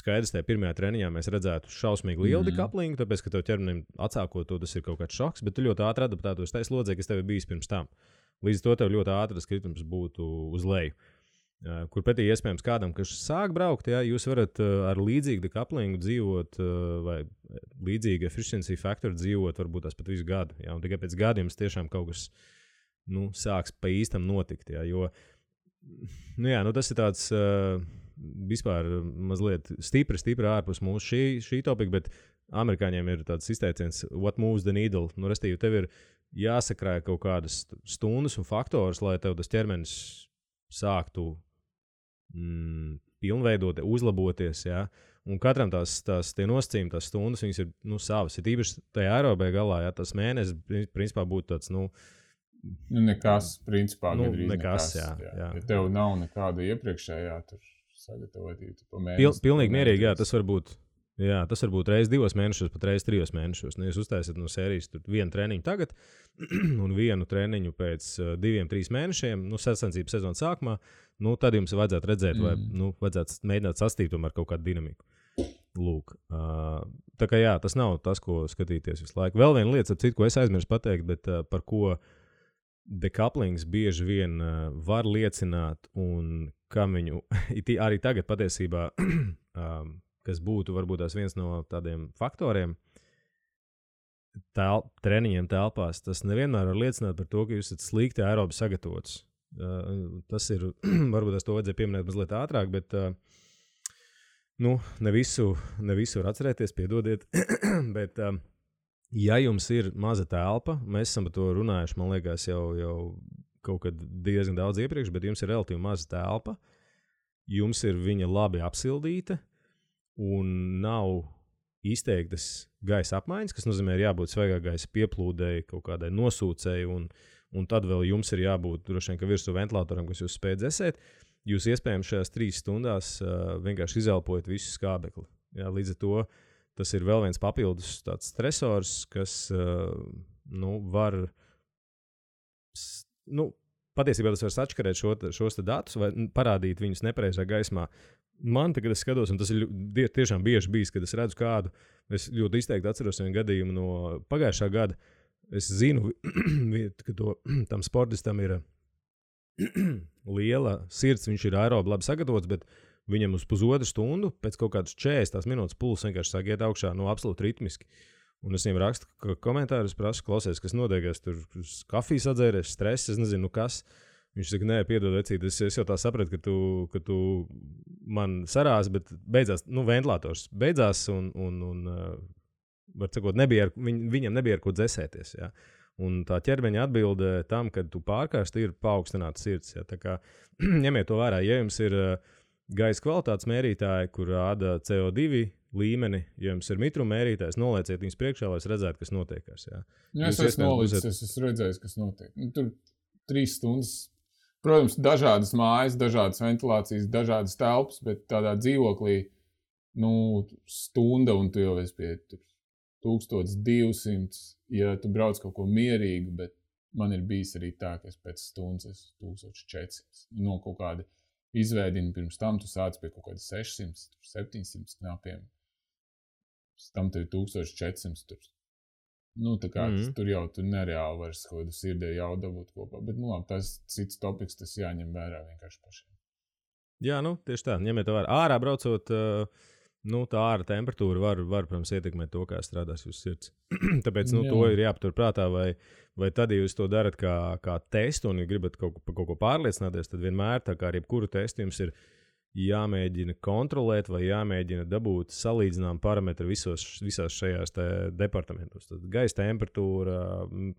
skaidrs, tajā pirmajā treniņā mēs redzētu šausmīgi lielu decouplingu, tāpēc, ka tev ķermenim atsākot to, tas ir kaut kāds šoks, bet tu ļoti ātri adaptētos tai slodzē, kas tev ir bijis pirms tam. Līdz to tev ļoti ātri tas kritums būtu uz leju. Kur pretī iespējams kādam, kas sāk braukt, ja, jūs varat ar līdzīgu decouplingu dzīvot vai līdzīgu efficiency faktoru dzīvot varbūt tās pat visu gadu. Ja, un tikai pēc gadiem tiešām kaut kas sāks pa īstam notikt. Ja, jo tas ir tāds vispār mazliet stipri ārpus mūsu šī topika, bet amerikāņiem ir tāds izteiciens what moves the needle. Restīvi, tev ir jāsakrāja kaut kādas stundas un faktors, lai tev tas ķermenis sāktu pilnveidot, uzlaboties, ja? Un katram tie nosacījumi, tās stundas, viņas ir savas. Ir īpaši tajā aerobē galā, ja tas mēnesis, principā, būtu tāds, nekas, principā, nekas, jā. Ja tev nav nekāda iepriekšējā tur sagatavotība pa mēnesi. Pilnīgi mierīgi, jā, tas var būt reiz 2 mēnešos, pat reiz 3 mēnešos. Jūs uztaisat no sērijas vienu treniņu tagad un vienu treniņu pēc 2-3 mēnešiem, sacensības sezonas sākumā, tad jums vajadzētu redzēt, vai vajadzētu mēģināt sastīt tomēr kaut kādu dinamiku. Lūk. Tā kā jā, tas nav tas, ko skatīties visu laiku. Vēl viena lieta, ko es aizmirsu pateikt, bet par ko decouplings bieži vien var liecināt un kam viņu arī tagad patiesībā kas būtu varbūt tās viens no tādiem faktoriem treniņiem telpās, tas nevienmēr var liecināt par to, ka jūs esat slikti aerobi sagatavots. Tas ir, varbūt es to vajadzēja pieminēt mazliet ātrāk, bet ne visu var atcerēties, piedodiet, bet ja jums ir maza telpa, mēs esam par to runājuši, man liekas, jau kaut kad diezgan daudz iepriekš, bet jums ir relatīvi maza telpa, jums ir viņa labi apsildīta, un nav izteiktas gaisa apmaiņas, kas nozīmē, ir jābūt svaigā gaisa pieplūdēji, kaut kādai nosūcēji, un tad vēl jums ir jābūt droši vien, ka virsū ventilatoram, kas jūs spēj dzēsēt. Jūs iespējams šajās 3 stundās vienkārši izelpojat visu skābekli. Jā, līdz ar to tas ir vēl viens papildus tāds stresors, kas var patiesībā tas var sačkarēt šos datus vai parādīt viņus nepareizā gaismā. Man tagad es skatos, un tas ir tiešām bieži bijis, kad es redzu kādu, es ļoti izteikti atceros vienu gadījumu no pagājušā gada. Es zinu, ka tam sportistam ir liela sirds, viņš ir aerobi labi sagatavots, bet viņam uz pusotru stundu pēc kaut kādas 40 minūtes pulss vienkārši sāk iet augšā, absolūti ritmiski. Un es viņam rakstu komentārus, prasu, klausies, kas notiekās, tur kafijas atzēries, stress, es nezinu, kas. Viņš saka, nē, piedod, vecīt, es jau tā sapratu, ka tu man sarās, bet beidzās, ventilators beidzās un var sakot, viņam nebija ar ko dzēsēties, jā. Un tā ķermeņa atbilde tam, kad tu pārkārsti, ir paaugstināta sirds, jā. Tā kā ņemiet to vērā, ja jums ir gaisa kvalitātes mērītāji, kur rāda CO2 līmeni, ja jums ir mitruma mērītājs, nolieciet viņus priekšā, lai es redzētu, kas notiekās, jā. Ja es esmu redzējis, kas notiek. Tur 3 stundas. Protams, dažādas mājas, dažādas ventilācijas, dažādas telpas, bet tādā dzīvoklī, stunda un tu jau esi pie 1200, ja tu brauc kaut ko mierīgu, bet man ir bijis arī tā, ka es pēc stundas esmu 1400. No kaut kāda izveidina pirms tam, tu sāc pie kaut kāda 600, 700 knapiem. Pēc tam tev 1400 tur. Tā kā tur jau tu nereāli vairs kaut kādu sirdē jau dabūt kopā. Bet, tas cits topiks, tas jāņem vērā vienkārši pašiem. Jā, tieši tā. Ņemiet to vērā. Ārā braucot, tā āra temperatūra var, protams, ietekmēt to, kā strādās jūsu sirds. Tāpēc, to ir jāpatur prātā, vai tad, ja jūs to darat kā testu un ja gribat kaut ko pārliecināties, tad vienmēr, tā kā ar jebkuru testu jums ir jāmēģina kontrolēt vai jāmēģina dabūt salīdzinām parametri visās šajās departamentos. Tad gaisa temperatūra,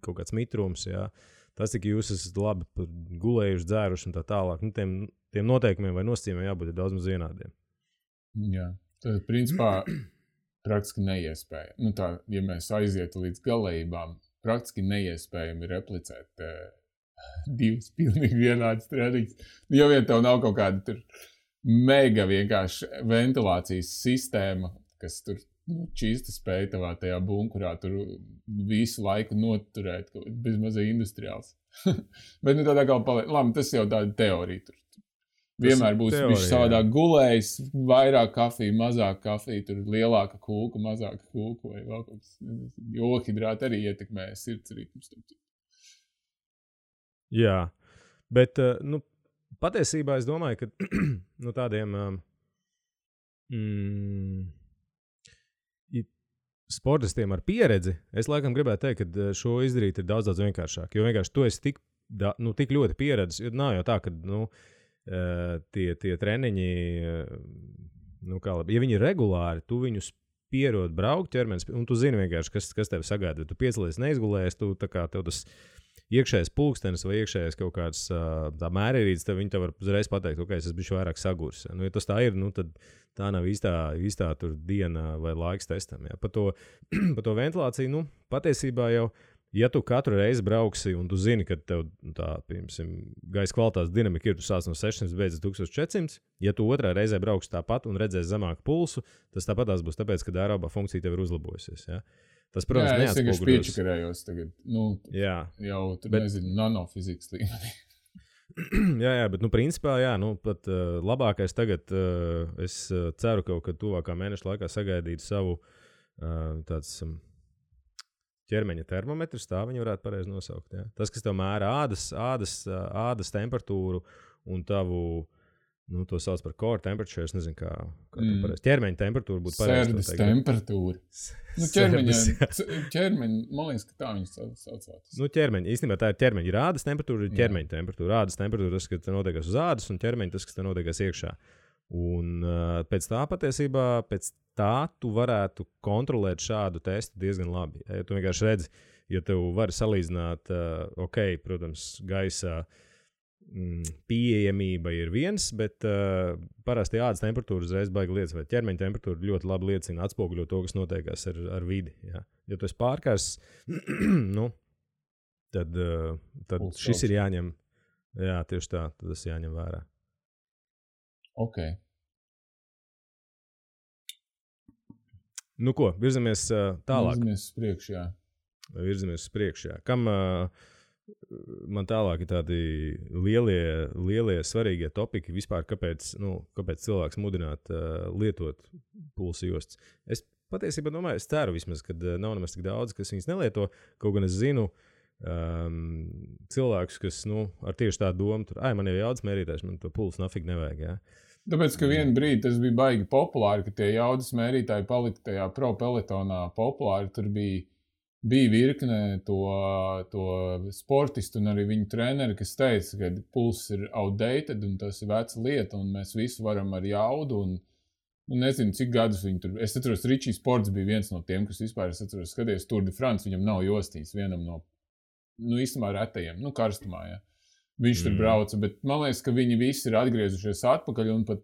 kaut kāds mitrums, jā. Tas, cik jūs esat labi gulējuši, dzēruši un tā tālāk. Tiem noteikumiem vai nosacījumiem jābūt daudz maz vienādiem. Jā, tad principā praktiski neiespējami. Ja mēs aizietu līdz galējībām, praktiski neiespējami replicēt 2 pilnīgi vienādas treniņas. Jo vien tev nav kaut kāda tur mega vienkārši ventilācijas sistēma, kas tur čīsta spēja tavā tajā bunkurā tur visu laiku noturēt, bezmazai industriāls. Bet tādā kā paliek, labi, tas jau tāda teorija tur. Vienmēr būs viņš savādāk gulējis, vairāk kafija, mazāk kafija, tur lielāka kūka, mazāka kūka vai vēl kaut kas. Johidrāti arī ietekmē sirds ritmus. Jā, bet, patiesībā es domāju, ka tādiem sportistiem ar pieredzi, es laikam gribētu teikt, ka šo izdarīt ir daudz vienkāršāk. Jo vienkārši tu esi tik ļoti pieredzis, jo nav jau tā, ka tie treniņi, ja viņi ir regulāri, tu viņus pierod braukt ķermenis, un tu zini vienkārši, kas tevi sagaida. Tu piecelies neizgulējies, tu tā kā tev tas iekšējais pulkstenis vai iekšējais kaut kāds tā mērierīts, tad viņi tev var uzreiz pateikt, ok, es bišu vairāk sagurs. Nu, ja tas tā ir, nu, tad tā nav īstā tur diena vai laiks testam. Ja. Par to ventilāciju, nu, patiesībā jau, ja tu katru reizi brauksi un tu zini, ka tev tā, piemēram, gaisa kvalitātes dinamika ir, tu sāc no 600, beidz 1400, ja tu otrā reizē brauksi tāpat un redzēsi zemāku pulsu, tas tāpatās būs tāpēc, ka aerobā funkcija tev ir uzlabojusies. Ja. Tas, protams, es vienkārši piečakarējos tagad, nu, jau tur nezinu, nanofizikas līmenī. jā, bet, nu, principā, jā, nu, pat labākais tagad, es ceru kaut kad tuvākā mēneša laikā sagaidīt savu tāds ķermeņa termometrs, tā viņi varētu pareizi nosaukt. Ja? Tas, kas tev mēra ādas temperatūru un tavu, nu, to sauc par core temperature, es nezinu, kā tu pareizi. Ķermeņa temperatūra būtu pareizi. Sērdis temperatūra. Nu, ķermeņa, man liekas, ka tā viņas saucās. Nu, ķermeņa, īstenībā tā ir ķermeņa. Ir ādas temperatūra, ir ķermeņa temperatūra. Ādas temperatūra, tas, kas te notiekās uz ādas, un ķermeņa, tas, kas te notiekās iekšā. Un pēc tā patiesībā, tu varētu kontrolēt šādu testu diezgan labi. Ja tu vienkārši redzi, ja tev var salīdzināt, protams, gaisa pieejamība ir viens, bet parasti ādas temperatūra uzreiz baigi liecina, vai ķermeņa temperatūra ļoti labi liecina, atspoguļo to, kas notiekās ar vidi. Ja, ja tu esi pārkārs, nu, tad šis ir jāņem, jā, tieši tā, tad tas jāņem vērā. Ok. Nu ko, virzamies tālāk. Virzamies uz priekšu, jā. Kam man tālāk ir tādi lielie svarīgie topiki vispār, kāpēc cilvēks mudināt lietot pulsa jostas. Es patiesībā domāju, es ceru vismaz, ka nav nemaz tik daudz, kas viņas nelieto, kaut gan es zinu cilvēkus, kas, nu, ar tieši tādu domu, tur, man jau jaudas mērītājs, man to pulsu nafig nevajag, jā. Tāpēc, ka vienu brīdi tas bija baigi populāri, ka tie jaudas mērītāji palika tajā pro peletonā populāri. Tur bija virkne to sportistu un arī viņu treneri, kas teica, ka pulss ir outdated un tas ir veca lieta un mēs visu varam ar jaudu un nezinu, cik gadus viņi tur. Es atceros, Ričijs Sports bija viens no tiem, kas vispār, es atceros, skaties Tour de France, viņam nav jostīs, vienam no, nu, īstenībā retajiem, nu, karstumā, jā. Viņš tur brauca, bet man liekas, ka viņi visi ir atgriezušies atpakaļ un pat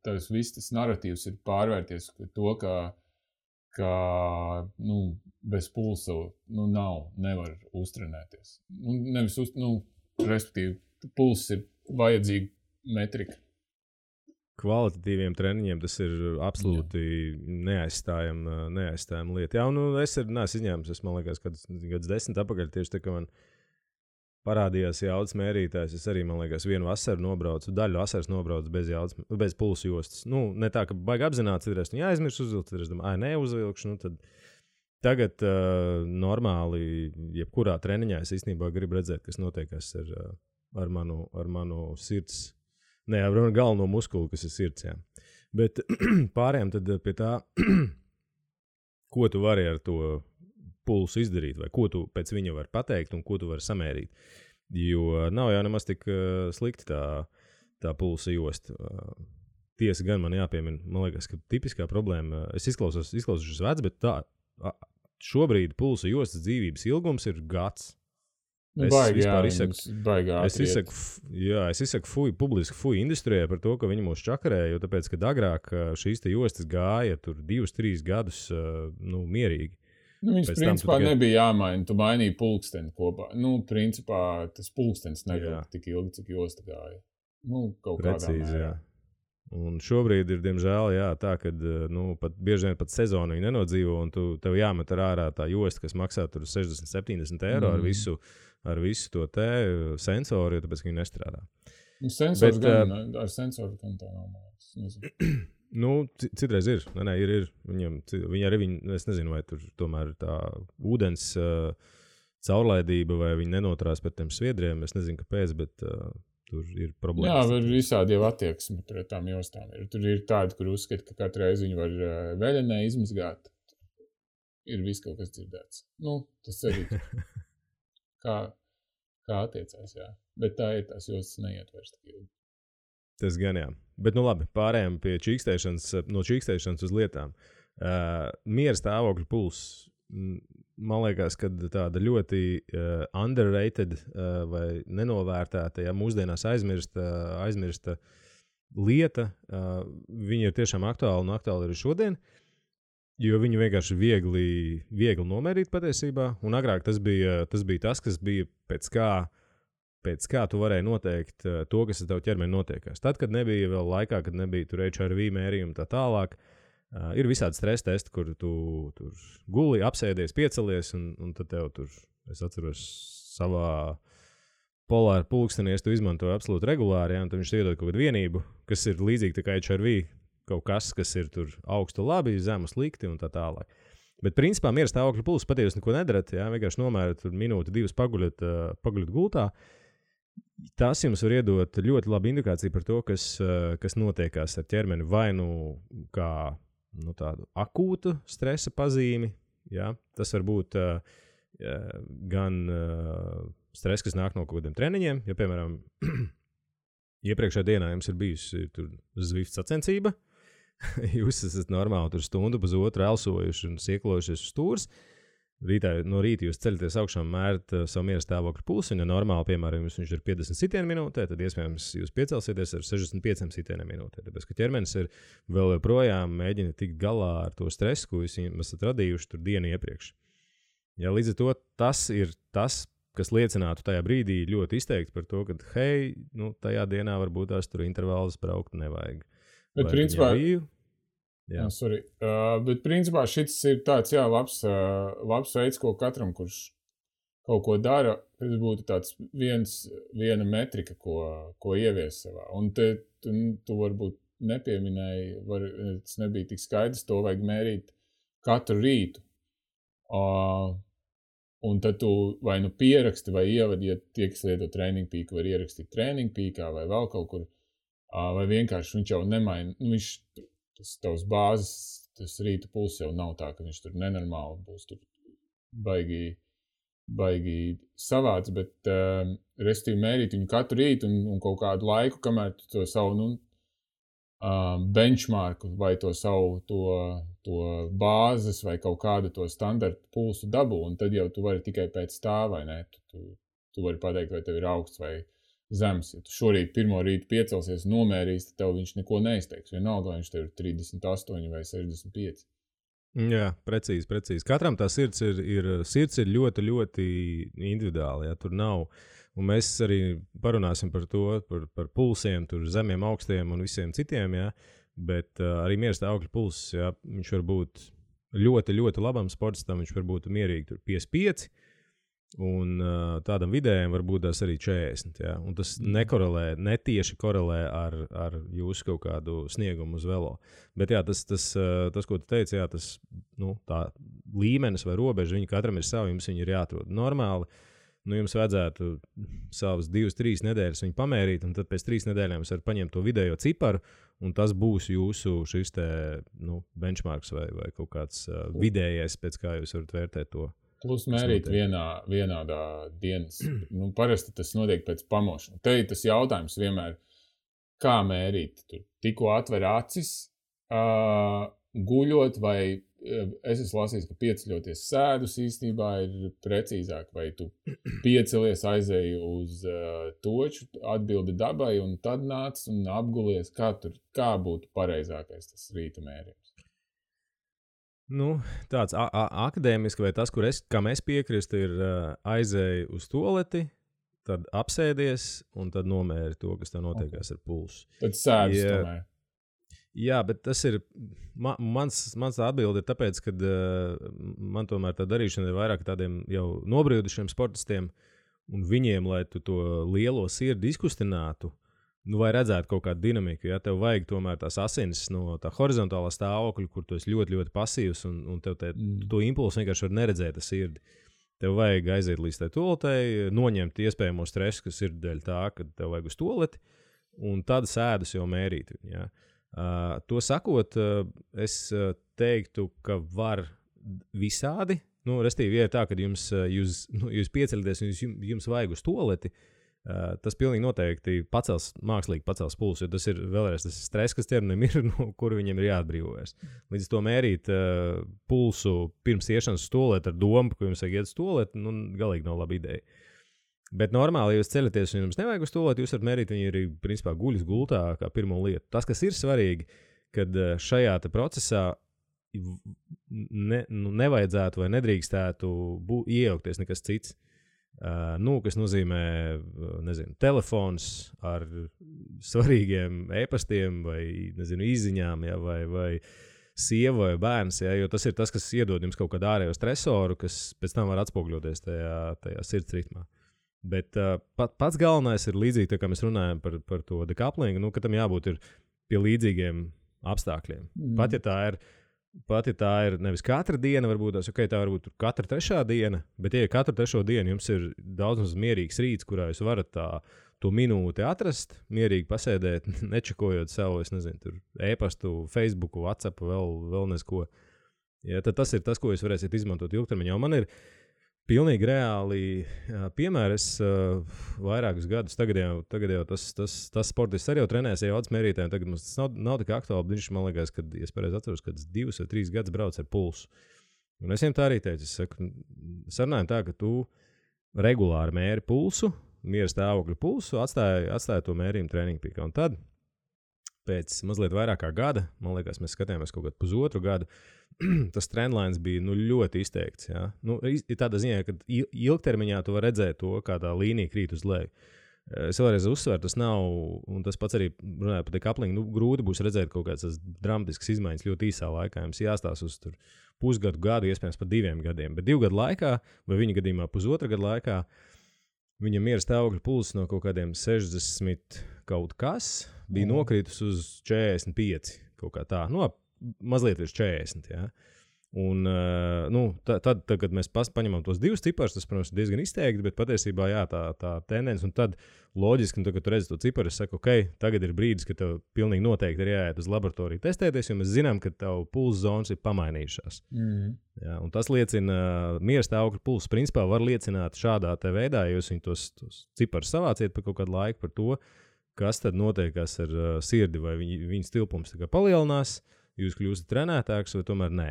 tas viss tas narratīvs ir pārvērties to, ka nu, bez pulsa nevar uztrenēties. Respektīvi, pulss ir vajadzīga metrika. Kvalitatīviem treniņiem tas ir absolūti neaizstājama lieta. Jā, nu es neesmu izņēmis, man liekas, kad 10 apakaļ tieši tā, ka man parādījās jaudas mērītājs. Es arī, man liekas, vienu vasaru nobraucu, daļu vasaras nobraucu bez pulsa jostas. Nu, ne tā, ka baigi apzināts, citreiz aizmirst uzvilkt, citreiz neuzvilkšu. Nu, tad tagad normāli, jebkurā treniņā es īstenībā gribu redzēt, kas notiekās ar manu sirds, ar galveno muskuli, kas ir sirds. Jā. Bet pārējām tad pie tā, ko tu vari ar to pulsu izdarīt, vai ko tu pēc viņa vari pateikt un ko tu vari samērīt. Jo nav jau nemaz tik slikti tā pulsa josta. Tiesa gan man jāpiemina, man liekas, ka tipiskā problēma, es izklausos vecs, bet šobrīd pulsa jostas dzīvības ilgums ir gads. Es izsaku publiski industrijai par to, ka viņi mūs čakarēja, jo tāpēc, ka agrāk šīs te jostas gāja tur 2-3 gadus mierīgi. Viņas principā nebija jāmaina, tu mainīji pulksteni kopā. Principā tas pulkstenis nebija tik ilgi, cik josta gāja. Kaut precīzi, kādā mērā. Un šobrīd ir, diemžēl, tā, ka bieži vien pat sezonu viņi nenodzīvo, un tev jāmet ārā tā josta, kas maksā tur 60-70 eiro ar visu to te sensoru, jo tāpēc, ka viņi nestrādā. Sensors ar sensoru gan tā nav mājas. Nezinu. Citreiz ir. Ir. Viņi arī, es nezinu, vai tur tomēr tā ūdens caurlaidība, vai viņi nenotrās par tiem sviedriem. Es nezinu, kāpēc, bet tur ir problēmas. Jā, ir visādi jau attieksmi pret tām jostām. Tur ir tādi, kur uzskata, ka katru reizi viņi var veļenē izmazgāt. Ir viss kaut kas dzirdēts. Tas arī kā attiecās, jā. Bet tā ir tās jostas neietvērs tik ilgi. Tas gan jā. Bet labi, pārējām pie no čīkstēšanas uz lietām. Miera stāvokļa pulss. man liekas, ka tāda ļoti underrated vai nenovērtēta, ja mūsdienās aizmirsta lieta, viņa ir tiešām aktuāla un aktuāla arī šodien, jo viņu vienkārši viegli nomērīt patiesībā, un agrāk tas bija tas, kas bija pēc kā tu varēji noteikt to, kas ar tavu ķermeni notiekās. Tad, kad nebija vēl laikā, kad nebija tur HRV mērījumi tā tālāk, ir visādi stresa testi, kur tu tur guli, apsēdies, piecelies, un tad tev tur, es atceros, savā polāra pulkstenies tu izmantoji absolūti regulāri, un tad viņš iedod kaut kādu vienību, kas ir līdzīgi tā kā HRV, kaut kas ir tur augstu labi, zemu slikti un tā tālāk. Bet principā miera stāvokļa pulss patiesi neko nedarat, vienkārši nomērat tur minūti, 2 paguļat gultā. Tas jums var iedot ļoti labu indikāciju par to, kas notiekās ar ķermeni, vai kā tādu akūtu stresa pazīmi. Ja? Tas var būt gan stress, kas nāk no kaut kādiem treniņiem. Ja, piemēram, iepriekšējā dienā jums ir bijusi Zwift sacensība, jūs esat normāli tur stundu pusotru elsojuši un sieklojušies uz stūres. No rīta jūs ceļaties augšā un mērat savu miera stāvokļa pulsu, un ja normāli, piemēram, viņš ir 50 sitienu minūtē, tad iespējams jūs piecelsieties ar 65 sitienu minūtē. Tāpēc, ka ķermenis ir vēl joprojām mēģina tikt galā ar to stresu, ko jūs esat radījuši tur dienu iepriekš. Ja, līdz ar to tas ir tas, kas liecinātu tajā brīdī ļoti izteikti par to, ka, hei, tajā dienā varbūt tās tur intervālus braukt nevajag. Bet principā... bet principā šis ir tāds, labs veids, ko katram, kurš kaut ko dara, tas būtu tāds viena metrika, ko ievies savā. Un tu varbūt nepieminēji, tas nebija tik skaidrs, to vajag mērīt katru rītu. Un tad tu vai pieraksti vai ievadi, ja tie, kas lieto Training Peak, var ierakstīt Training Peakā vai vēl kaut kur, vai vienkārši viņš jau nemaina, tas tavs bāzes, tas rīta pulss jau nav tā, ka viņš tur nenormāli būs tur baigi savāds, bet restīvi mērīt viņu katru rītu un kaut kādu laiku, kamēr tu to savu benchmarku vai to savu to bāzes vai kaut kādu to standartu pulsu dabū, un tad jau tu vari tikai pēc tā, vai ne? Tu vari pateikt, vai tev ir augsts vai zems. Ja tu šorīt pirmo rītu piecelsies un nomērīs, tad tev viņš neko neizteiks. Vienalga, vai viņš tev ir 38 vai 65. Jā, precīzi. Katram tā sirds ir ļoti, ļoti individuāli. Ja? Tur nav. Un mēs arī parunāsim par to, par pulsiem, tur zemiem, augstiem un visiem citiem. Ja? Bet arī miera stāvokļa pulss, ja? Viņš var būt ļoti, ļoti labam sportistam. Viņš var būt mierīgi tur 55. Un tādam vidējam var būt tās arī 40. Ja? Un tas netieši korelē ar jūsu kaut kādu sniegumu uz velo. Bet jā, tas ko tu teici, jā, tas, tā līmenis vai robeža, viņi katram ir savi, jums viņi ir jāatrod. Normāli, jums vajadzētu savas 2-3 nedēļas viņu pamērīt, un tad pēc 3 nedēļām jūs varat paņemt to vidējo ciparu, un tas būs jūsu šis te, benchmarks vai kaut kāds vidējais, pēc kā jūs varat vērtēt to. Plus mērīt vienādā dienas. Parasti tas notiek pēc pamošanas. Te ir tas jautājums vienmēr, kā mērīt. Tur tikko atver acis, guļot, vai es esmu lasījis, ka pieceļoties sēdus īstenībā ir precīzāk, vai tu piecelies, aizēji uz toču, atbildi dabai, un tad nāc un apgulies, kā būtu pareizākais tas rīta mērījums. Tāds akadēmiski vai tas, kam es piekristu, ir aizēji uz tualeti, tad apsēdies un tad nomēri to, kas tev notiekās ar pulsu. Tad sēdus tomēr. Jā, bet tas ir, mans atbilde ir tāpēc, ka man tomēr tā darīšana ir vairāk tādiem jau nobriedušiem sportistiem, un viņiem, lai tu to lielo sirdi izkustinātu, vai redzētu kaut kādu dinamiku, ja tev vajag tomēr tās asinis no tā horizontālā stāvokļa, kur tu esi ļoti, ļoti pasīvs, un tev to impulsu vienkārši var neredzēt ar sirdi. Tev vajag aiziet līdz tai toaletei, noņemt iespējamo stresu, kas ir dēļ tā, ka tev vajag uz toaleti, un tad sēdus jau mērīt. Ja. To sakot, es teiktu, ka var visādi. Restīvi, ja ir tā, ka jūs pieceļaties un jums vajag uz toaleti, Tas pilnīgi noteikti mākslīgi pacels pulsu, jo tas ir vēlreiz tas stress, kas ķermenim ir, no kura viņiem ir jāatbrīvojas. Līdz to mērīt pulsu pirms iešanas uz tualeti ar domu, ka jums vajag iet uz tualeti, galīgi nav laba ideja. Bet normāli, ja jūs ceļaties un jums nevajag uz tualeti, jūs varat mērīt viņu arī, principā, guļas gultā kā pirmo lietu. Tas, kas ir svarīgi, kad šajā te procesā nevajadzētu vai nedrīkstētu iejaukties nekas cits. Kas nozīmē, telefons ar svarīgiem e-pastiem vai, izziņām, ja, vai sieva vai bērns, ja, jo tas ir tas, kas iedod jums kaut kādu ārējo stresoru, kas pēc tam var atspoguļoties tajā sirds ritmā. Bet pats galvenais ir līdzīgi, tā kā mēs runājam par to decouplingu, ka tam jābūt ir pie līdzīgiem apstākļiem. Pat ja tā ir nevis katra diena, varbūt tā varbūt katra trešā diena, bet ja katru trešo dienu jums ir daudz mierīgs rīts, kurā jūs varat to minūti atrast, mierīgi pasēdēt, nečekojot savu, tur e-pastu, Facebooku, WhatsApp, vēl nesko. Ja, tad tas ir tas, ko jūs varēsiet izmantot ilgtermiņā. Un man ir pilnīgi reāli piemēri. Es vairākus gadus, tagad jau tas sportists arī jau trenēs jaudas mērītājiem, tagad mums tas nav tik aktuāli, viņš man liekas, kad, ja es pareizi atceros, kad 2 vai 3 gadus brauc ar pulsu. Un es viņiem tā arī teicu, es saku, sarunājam tā, ka tu regulāri mēri pulsu, miera stāvokļa pulsu, atstāja to mērījumu treniņu pīkā. Un tad, pēc mazliet vairāk kā gada, man liekas, mēs skatījāmies kaut kādu pusotru gadu, tas trendlines bija ļoti izteikts. Ja? Ir tādā ziņā, ka ilgtermiņā tu vari redzēt to, kā tā līnija krīt uz leju. Es vēlreiz uzsveru, tas nav, un tas pats arī runāja par decouplingu, grūti būs redzēt kaut kādas dramatiskas izmaiņas ļoti īsā laikā. Jums jāstās uz pusgadu, gadu, iespējams pat 2 gadiem. Bet 2 gadu laikā, vai viņa gadījumā pusotra gadu laikā, viņa miera stāvokļa pulss no kaut kādiem 60 kaut kas bija nokritus uz 45 kaut kā tā. Mazliet virs 40. Ja? Un, tad, kad mēs paņemam tos 2 ciparus, tas, protams, ir diezgan izteikti, bet patiesībā jā, tā tendence. Un tad loģiski, kad tu redzi to ciparu, es saku, ok, tagad ir brīdis, kad tev pilnīgi noteikti ir jāiet uz laboratoriju testēties, jo mēs zinām, ka tavu pulsa zonas ir pamainījušās. Jā, un tas liecina, miera stāvokļa pulss principā var liecināt šādā te veidā, ja jūs viņu tos ciparus savāciet par kaut kādu laiku par to, kas tad notiekās ar sirdi, vai viņas tilpums palielinās, jūs kļūstat trenētāks vai tomēr nē.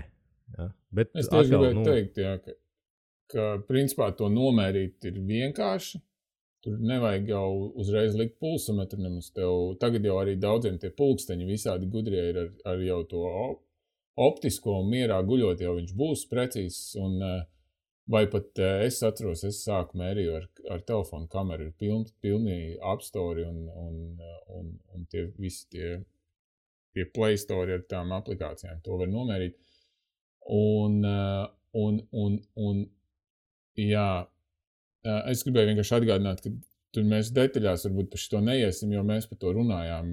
Ja? Bet es tieši gribēju teikt, jā, ka principā to nomērīt ir vienkārši. Tur nevajag jau uzreiz likt pulsometru nemaz tev. Tagad jau arī daudziem tie pulksteņi visādi gudrie ir ar jau to optisko un mierā guļot, jau viņš būs precīzs. Un, vai pat es atceros, es sāku mērīju ar telefonu kameru, ir pilni apstori un tie visi tie Play Store ar tām aplikācijām. To var nomērīt. Un jā, es gribēju vienkārši atgādināt, ka tur mēs detaļās varbūt par šito neiesim, jo mēs par to runājām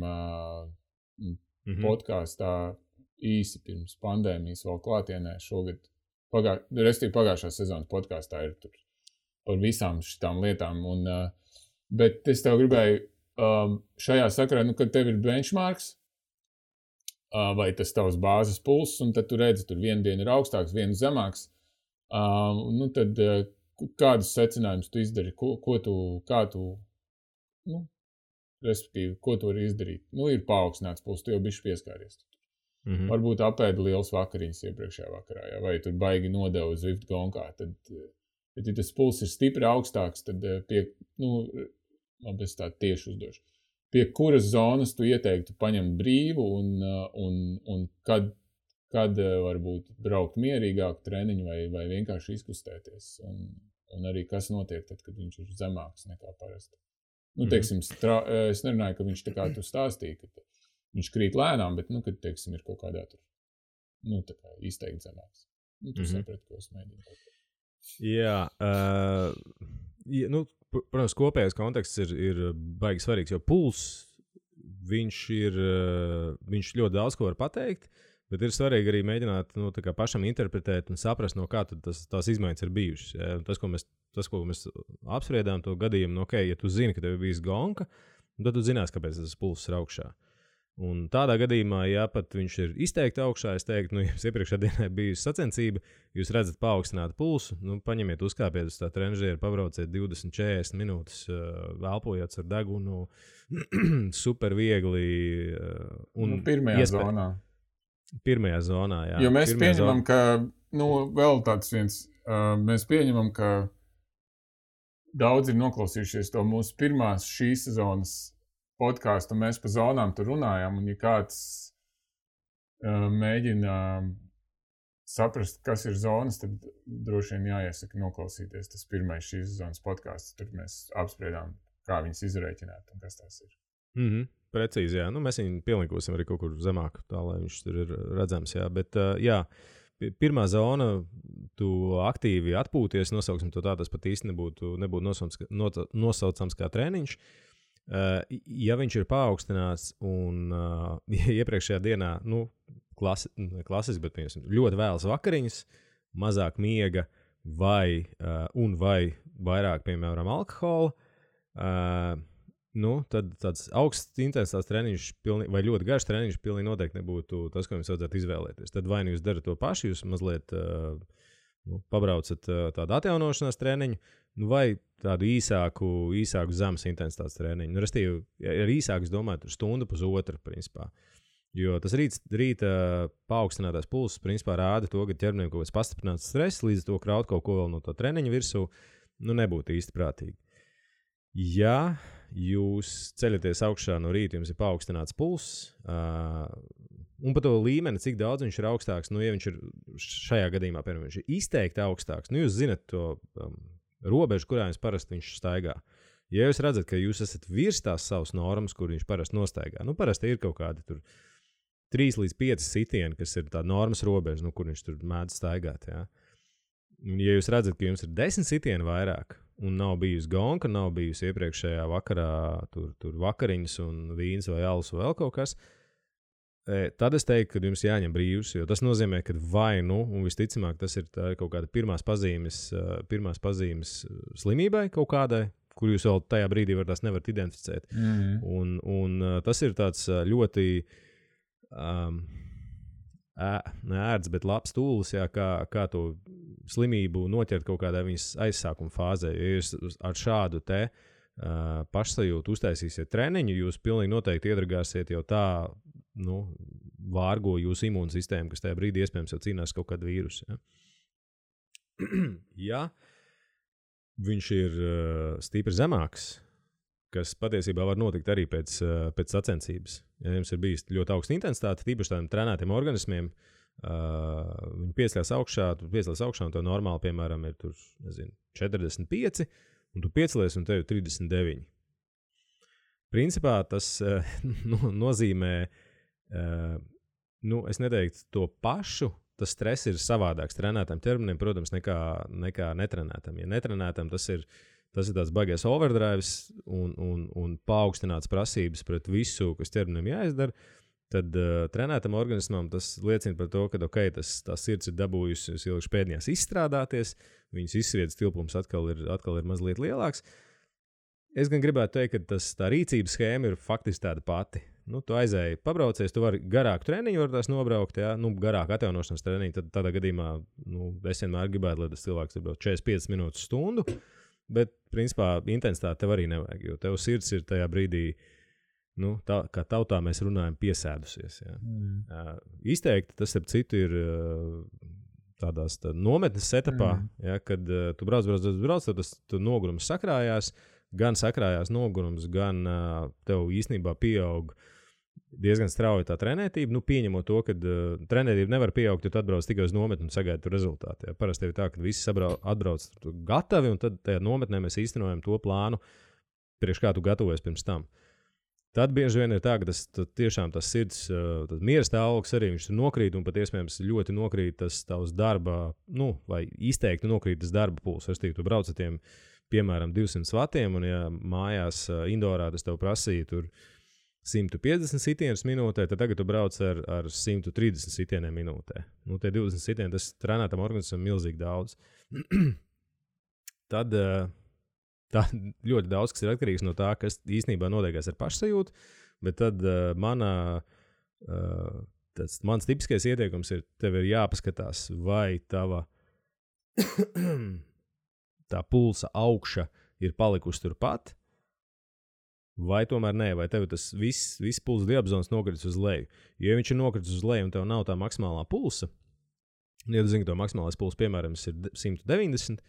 podkāstā īsi pirms pandēmijas vēl klātienē šogad. Respektīvi pagājušā sezonas podkāstā ir tur par visām šitām lietām. Bet es tev gribēju šajā sakarā, kad tev ir benchmarks, vai tas tavs bāzes pulss, un tad tu redzi, tur vienu dienu ir augstāks, vienu zemāks. Tad kādus secinājumus tu izdari, respektīvi, ko tu vari izdarīt? Ir paaugstināts pulss, tu jau bišķi pieskāries. Varbūt apēdi liels vakariņas iepriekšējā vakarā, ja? Vai tur baigi nodevu Zwift gonkā. Tad, ja tas pulss ir stipri augstāks, tad labi, es tā tieši uzdošu. Pie kuras zonas tu ieteiktu paņemt brīvu un kad varbūt braukt mierīgāk treniņu vai vienkārši izkustēties. Un arī kas notiek tad, kad viņš ir zemāks nekā parasti. Teiksim, es nerunāju, ka viņš tā kā tu stāstīji, ka viņš krīt lēnām, bet, kad, teiksim, ir kaut kādā tur, tā kā izteikti zemāks. Tu saprati, ko es mēģinu. Jā, protams, kopējais konteksts ir baigi svarīgs, jo pulss, viņš ļoti daudz ko var pateikt, bet ir svarīgi arī mēģināt pašam interpretēt un saprast, no kā tās izmaiņas ir bijušas. Ja? Tas, ko mēs apspriedām to gadījumu, ja tu zini, ka tev ir bijis gonka, tad tu zinās, kāpēc tas pulss ir augšā. Un tādā gadījumā, ja pat viņš ir izteikti augšā, es teiktu, jums iepriekšējā dienā bijusi sacensība, jūs redzat paaugstinātu pulsu, paņemiet, uzkāpiet uz tā trenžieru, pabrauciet 20-40 minūtes, elpojot ar degunu, super viegli. Pirmajā zonā. Pirmajā zonā, jā. Jo mēs pieņemam, ka, vēl tāds viens, mēs pieņemam, ka daudzi ir noklausījušies to mūsu pirmās šīs sezonas podkāstu, mēs pa zonām tur runājām, un ja kāds mēģina saprast, kas ir zonas, tad droši vien jāiesaka noklausīties tas pirmais šīs sezonas podkāsts. Tur mēs apspriedām, kā viņas izrēķināt un kas tās ir. Precīzi, jā. Mēs viņu pielikosim arī kaut kur zemāk, tā lai viņš tur ir redzams, jā. Bet, jā, pirmā zona, tu aktīvi atpūties, nosauksim to tā, tas pat īsti nebūtu nosaucams kā treniņš. Ja viņš ir paaugstināts un iepriekšējā dienā, klasiski, bet ļoti vēlas vakariņas, mazāk miega vai vairāk, piemēram, alkohola, tad tāds augsts intensitātes treniņš vai ļoti garš treniņš pilnīgi noteikti nebūtu tas, ko jums vajadzētu izvēlēties. Tad vai nu jūs darat to pašu, jūs mazliet pabraucat tādu atjaunošanās treniņu, vai tādu īsāku zemes intensitātes treniņu. Restīvi, ar īsāku, es domāju, tur stundu, pusotru, principā. Jo tas rīta paaugstinātais pulss, principā, rāda to, ka ķermenim kaut kāds pastiprināts stress, līdz to kraut kaut ko vēl no to treniņa virsū, nebūtu īsti prātīgi. Ja jūs ceļaties augšā no rīta, jums ir paaugstināts pulss, un par to līmeni, cik daudz viņš ir augstāks, ja viņš ir šajā gadījumā, piemēram, viņš ir izteikti augstāks, jūs zinat to robežu, kurā jums parasti viņš staigā. Ja jūs redzat, ka jūs esat virs tās savas normas, kur viņš parasti nostaigā, parasti ir kaut kādi tur 3 līdz 5 sitieni, kas ir tā normas robeža, kur viņš tur mēdz staigāt. Ja? Ja jūs redzat, ka jums ir 10 sitieni vairāk, un nav bijusi gonka, nav bijusi iepriekšējā vakarā tur vakariņas un vīns vai alus vai vēl kaut kas, tad es teiktu, ka jums jāņem brīvs, jo tas nozīmē, ka un visticamāk tas ir kaut kāda pirmās pazīmes slimībai kaut kādai, kur jūs vēl tajā brīdī tās nevarat identificēt. Un tas ir tāds ļoti ērts, bet labs tūlis, jā, kā to slimību noķert kaut kādā viņas aizsākuma fāzē. Ja jūs ar šādu pašsajūtu uztaisīsiet treniņu, jūs pilnīgi noteikti iedragāsiet jau tā, vārgo jūsu imūnsistēmu, kas tajā brīdī iespējams jau cīnās kaut kādu vīrusu. Ja? Ja viņš ir stipri zemāks, kas patiesībā var notikt arī pēc sacensības. Ja jums ir bijis ļoti augsta intensitāte, tīpaši tādiem trenētiem organismiem, viņi piesļās augšā, un to normāli, piemēram, ir tur, 45, un tu piecelies, un tev ir 39. Principā tas nozīmē, es neteiktu to pašu, tas stress ir savādāks trenētam ķermenim, protams, nekā netrenētam. Ja netrenētam tas ir tāds baigais overdrives un paaugstināts prasības pret visu, kas ķermenim jāizdara, tad trenētam organismam tas liecina par to, ka tā sirds ir dabūjusi ilgši pēdējās izstrādāties, viņas izsviedas tilpums atkal ir mazliet lielāks. Es gan gribētu teikt, ka tā rīcības schēma ir faktiski tāda pati. Tu aizēji, pabraucies, tu vari garāku treniņu nobraukt, ja? Garāku atjaunošanas treniņu, tad tādā gadījumā es vienmēr gribētu, lai tas cilvēks ir 45 minūtes stundu, bet, principā, intensitāte tev arī nevajag, jo tev sirds ir tajā brīdī, kā tautā mēs runājam, piesēdusies. Ja? Izteikti tas, ap citu, ir tādās nometnes etapā, ja? Kad tu brauc, tad tas nogurums sakrājās, gan sakrājās nogurums, gan tev īstenībā pieaug diezgan strauji tā trenētība. Pieņemot to, ka trenētība nevar pieaugt, jo tu atbrauc tikai uz nometni un sagaidi tur rezultātu. Ja? Parasti ir tā, ka visi atbrauc gatavi, un tad tajā nometnē mēs īstenojam to plānu, priekš kā tu gatavojies pirms tam. Tad bieži vien ir tā, ka tiešām tas sirds, tas miera stāvoklis arī viņš nokrīt, un pat iespējams ļoti nokrīt tas tavs darba, vai izteikti nokrīt tas darba puls. Tu brauc ar tiem, piemēram, 200 vatiem, un ja mājās indorā tas tev prasīja tur 150 sitienus minūtē, tad tagad tu brauc ar 130 sitieniem minūtē. Tie 20 sitieni, tas trenētam organismam milzīgi daudz. Tad tā ļoti daudz, kas ir atkarīgs no tā, kas īstenībā notiekās ar pašsajūtu, bet tad mans tipiskais ieteikums ir, tev ir jāpaskatās, vai tava tā pulsa augša ir palikusi turpat, vai tomēr nē, vai tev tas viss pulsa diapazons nokritis uz leju. Jo, ja viņš ir nokritis uz leju un tev nav tā maksimālā pulsa, ja tu zini, ka to maksimālais pulss, piemēram, ir 190,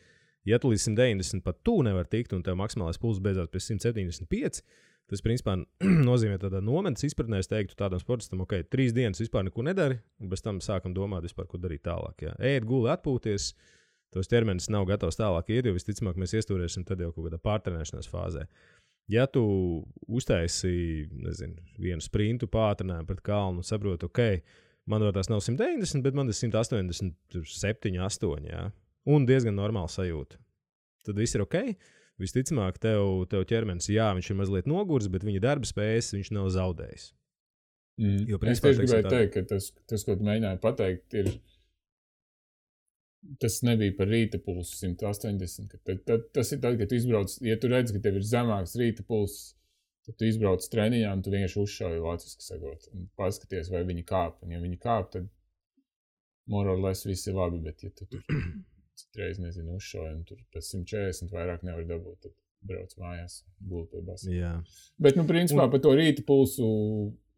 ja tu līdz 190 pat tu nevar tikt un tev maksimālais pulss beidzās pie 175, tas, principā, nozīmē tādā nometnes izpratnē, es teiktu tādam sportistam, 3 dienas vispār neko nedari, un bez tam sākam domāt vispār, ko darīt tālāk. Jā. Ēd, guli, atpūties, tos ķermenis nav gatavs tālāk iet, jo visticamāk mēs iestūrēsim tad jau kaut kādā pārtrenēšanās fāzē. Ja tu uztaisi, vienu sprintu pātrinājumu pret kalnu un saproti, man tās nav 190, bet man ir 187, 8, jā. Un diezgan normāli sajūta. Tad viss ir ok. Visticamāk, tev ķermenis, jā, viņš ir mazliet nogurs, bet viņa darba spējas viņš nav zaudējis. Jo, principā, es gribēju teikt, ka tas, ko tu mēģināji pateikt, ir tas nebija par rīta pulsu 180. Tas ir tad, kad tu izbrauc, ja tu redz, ka tev ir zemāks rīta pulss, tad tu izbrauc treniņā un tu vienkārši uzšauji vāciski sakot un paskaties, vai viņi kāp. Un ja viņi kāp, tad more or less viss ir labi, bet ja tu tur citreiz, uzšauji un tur pēc 140 vairāk nevar dabūt, tad brauc mājās, guli pie basa. Jā. Bet, principā, par to rīta pulsu,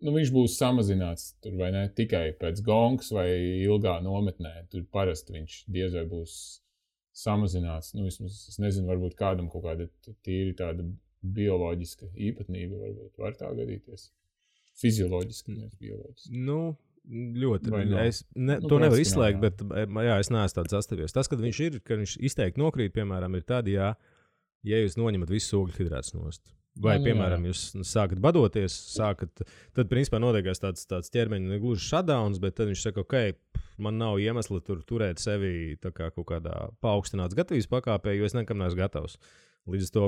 viņš būs samazināts tur, vai ne, tikai pēc gongas vai ilgā nometnē. Tur parasti viņš diez vai būs samazināts. Vismaz, es nezinu, varbūt kādam kaut kāda tīri tāda bioloģiska īpatnība varbūt var tā gadīties. Fizioloģiski, nevis bioloģiski. Ļoti. To nevar izslēgt, bet jā, es neesmu tāds sastavies. Tas, kad viņš izteikti nokrīt, piemēram, ir tad, ja jūs noņemat visu ogļhidrātus nost. Vai, piemēram, jūs sākat badoties, tad, principā, notiekās tāds ķermeņa negluži shutdowns, bet tad viņš saka, man nav iemesla turēt sevi tā kā kaut kādā paaugstināts gatavības pakāpē, jo es nekam neesmu gatavs. Līdz to,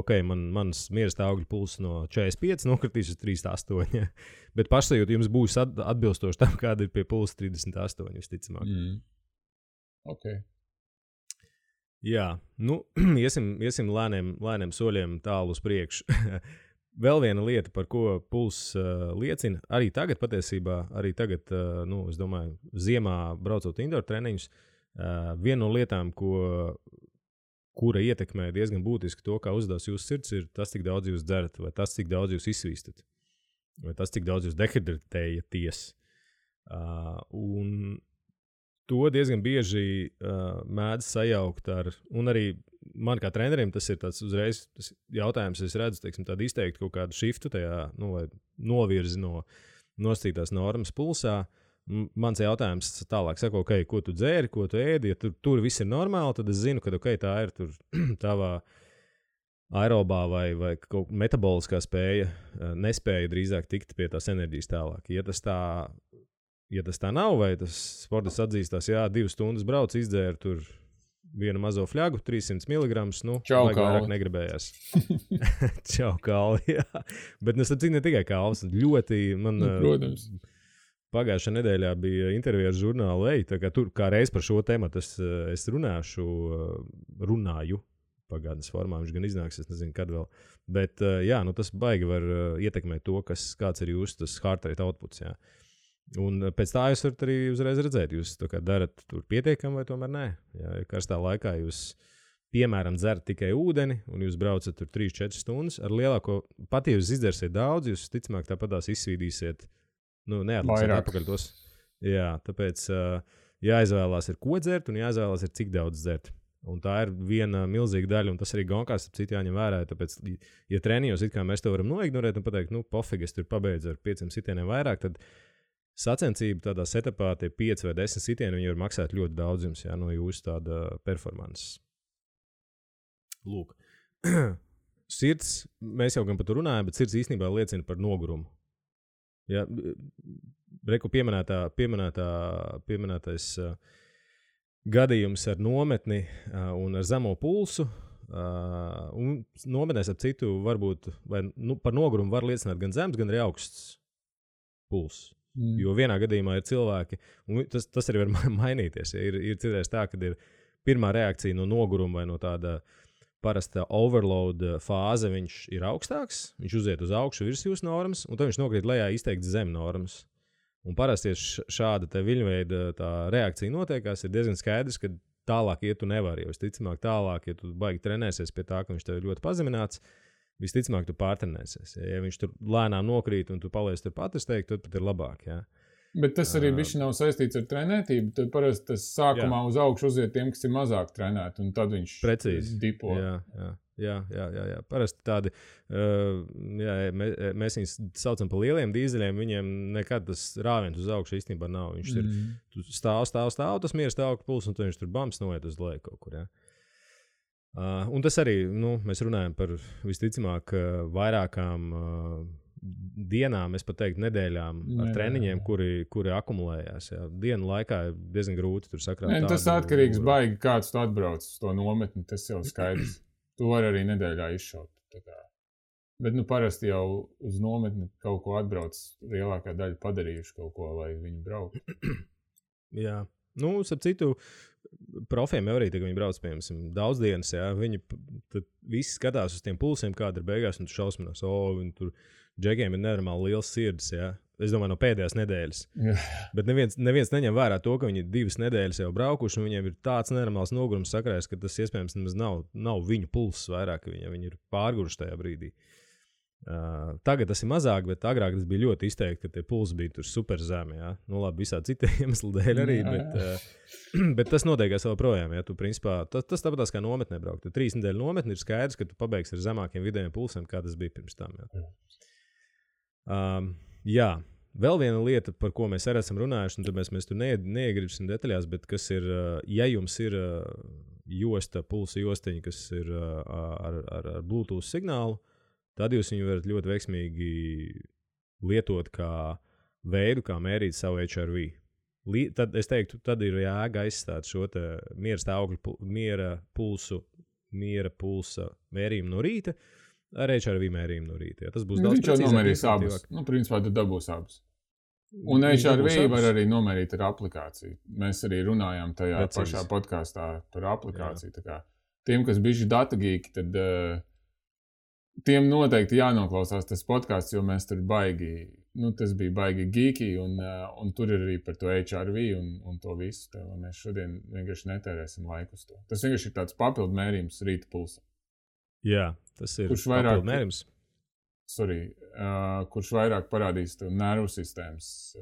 mans miera stāvokļa pulss no 45 nokritīs uz 38, bet pašsajūta jums būs atbilstoši tam, kāda ir pie pulsa 38, visticamāk. Ok. Jā, iesim lēniem soļiem tālu uz priekšu. Vēl viena lieta, par ko pulss liecina, arī tagad patiesībā, es domāju, ziemā braucot indoor treniņus, viena no lietām, kura ietekmē diezgan būtiski to, kā uzdevās jūsu sirds, ir tas, cik daudz jūs dzerat, vai tas, cik daudz jūs izsvīstat, vai tas, cik daudz jūs dehidratējaties. Un to diezgan bieži mēdz sajaukt ar, un arī man kā trenerim tas ir tāds uzreiz tas jautājums, es redzu, tādu izteikti kaut kādu šiftu tajā, vai novirzi no nosacītās normas pulsā. Mans jautājums tālāk saka, ko tu dzēri, ko tu ēdi, ja tur viss ir normāli, tad es zinu, ka tā ir tur tavā aerobā vai kaut metaboliskā spēja, nespēja drīzāk tikt pie tās enerģijas tālāk. Ja tas tā nav, vai tas sportists atzīstās, 2 stundas brauc, izdzēra tur vienu mazo fļagu, 300 mg, vairāk negribējās. Čau, kalvi, jā. Bet es saprotu, ne tikai kalvs, ļoti man... Protams. Pagājušā nedēļā bija intervija ar žurnālu Ej, tā kā tur kā reiz par šo tematu es runāju pagātnes formā, viņš gan iznāks, es nezinu, kad vēl. Bet, tas baigi var ietekmēt to, kāds ir jūsu tas heart rate outputs, jā. Un pēc tā jūs varat arī uzreiz redzēt, jūs darat tur pietiekami vai tomēr nē. Ja karstā laikā jūs, piemēram, dzerat tikai ūdeni un jūs braucat tur 3-4 stundas ar lielāko, pat ja jūs izdzersiet daudz, jūs ticamāk tāpatās izsvīdīsiet, neatliksiet atpakaļ tos. Jā, tāpēc jāizvēlās ir ko dzert un jāizvēlās ir cik daudz dzert. Un tā ir viena milzīga daļa, un tas arī gonkās ap citu jāņem vērā. Tāpēc, ja treniņos it kā mēs to varam noignorēt un pateikt, pofīgi, es tur pabeidzu ar 5 sitieniem vairāk, tad sacensība tādā setupā tie 5 vai 10 sitieni, viņi var maksāt ļoti daudz jums, no jūsu tāda performances. Lūk. Sirds, mēs jau gan par to runājam, bet sirds īstenībā liecina par nogurumu. Ja, reku pieminētais gadījums ar nometni un ar zemo pulsu, un nometnēs ap citu varbūt, vai par nogurumu var liecināt gan zems, gan arī augsts pulss. Jo vienā gadījumā ir cilvēki, un tas arī var mainīties. Ja ir citreiz tā, kad ir pirmā reakcija no noguruma vai no tāda parasta overload fāze viņš ir augstāks, viņš uziet uz augšu virs jūsu normas, un tad viņš nokrīt lejā izteikti zem normas. Un parasti šāda viļņveida tā reakcija notiekās, ir diezgan skaidrs, ka tālāk iet tu nevari, jo visticamāk tālāk, ja tu baigi trenēsies pie tā, ka viņš tev ir ļoti pazemināts, visticamāk tu pārtrenēsies. Ja viņš tur lēnām nokrīt un tu paliec turpat, es teiktu, tad pat ir labāk, jā. Bet tas arī bišķi nav saistīts ar trenētību. Tad parasti tas sākumā uz augšu uziet tiem, kas ir mazāk trenēti, un tad viņš dipo. Jā. Parasti tādi, mēs viņus saucam par lieliem dīzeļiem, viņiem nekad tas rāviens uz augšu īstenībā nav. Viņš ir stāv, tas miera stāvokļa pulss, un tad viņš tur bams noiet uz leju kaut kur, jā. Un tas arī, mēs runājam par visticamāk vairākām dienām, es pat teiktu, nedēļām ar treniņiem, kuri akumulējās. Jā. Dienu laikā ir diezgan grūti tur sakrāt. Tas atkarīgs baigi, kāds tu atbrauc uz to nometni, tas jau skaidrs. Tu vari arī nedēļā izšaut. Bet parasti jau uz nometni kaut ko atbrauc, lielākā daļa padarījuši kaut ko, lai viņi brauktu. Jā. Starp citu, profiem jau arī, kad viņi brauc, piemēram, daudz dienas, jā, viņi tad visi skatās uz tiem pulsiem, kāda ir beigās, un tu šausminās, viņi tur džekiem ir nenormāli liels sirds, jā. Es domāju, no pēdējās nedēļas. Bet neviens neņem vērā to, ka viņi 2 nedēļas jau braukuši, un viņiem ir tāds nenormāls nogurums sakrājas, ka tas iespējams nemaz nav viņu pulss vairāk, ka viņi ir pārguruši tajā brīdī. Tagad tas ir mazāk, bet agrāk tas bija ļoti izteikti, ka tie pulsi bija tur super zemi. Ja? Labi, visādi citi iemesli dēļ arī, bet tas notiekās vēl projām. Ja? Tu, principā, tas tāpatās kā nometnē braukt. Tu 3 nedēļu nometni ir skaidrs, ka tu pabeigsi ar zemākiem vidējiem pulsiem, kā tas bija pirms tam. Ja? Vēl viena lieta, par ko mēs arī esam runājuši, un tāpēc mēs tur neiegribsim detaļās, bet kas ir, ja jums ir josta, pulsa josteņa, kas ir ar Bluetooth signālu, tad jūs viņu varat ļoti veiksmīgi lietot kā veidu, kā mērīt savu HRV. Tad es teiktu, tad ir jēga aizstāt šo te miera stāvokļu, miera pulsa mērījumu no rīta ar HRV mērījumu no rīta. Ja, tas būs daudz precīzāk. Viņš jau nomērīs abas. Principā tu dabūs abas. Un HRV var arī nomērīt ar aplikāciju. Mēs arī runājām tajā pašā podkāstā par aplikāciju. Tā kā tiem, kas bijuši datagīki, tad tiem noteikti jānoklausās tas podkāsts, jo mēs tur baigi, tas bija baigi geeki, un tur ir arī par to HRV un to visu. Tā, mēs šodien vienkārši netērēsim laiku uz to. Tas vienkārši ir tāds papildu mērījums rīta pulsa. Jā, tas ir papildu mērījums. Kurš vairāk parādīs to nervu sistēmas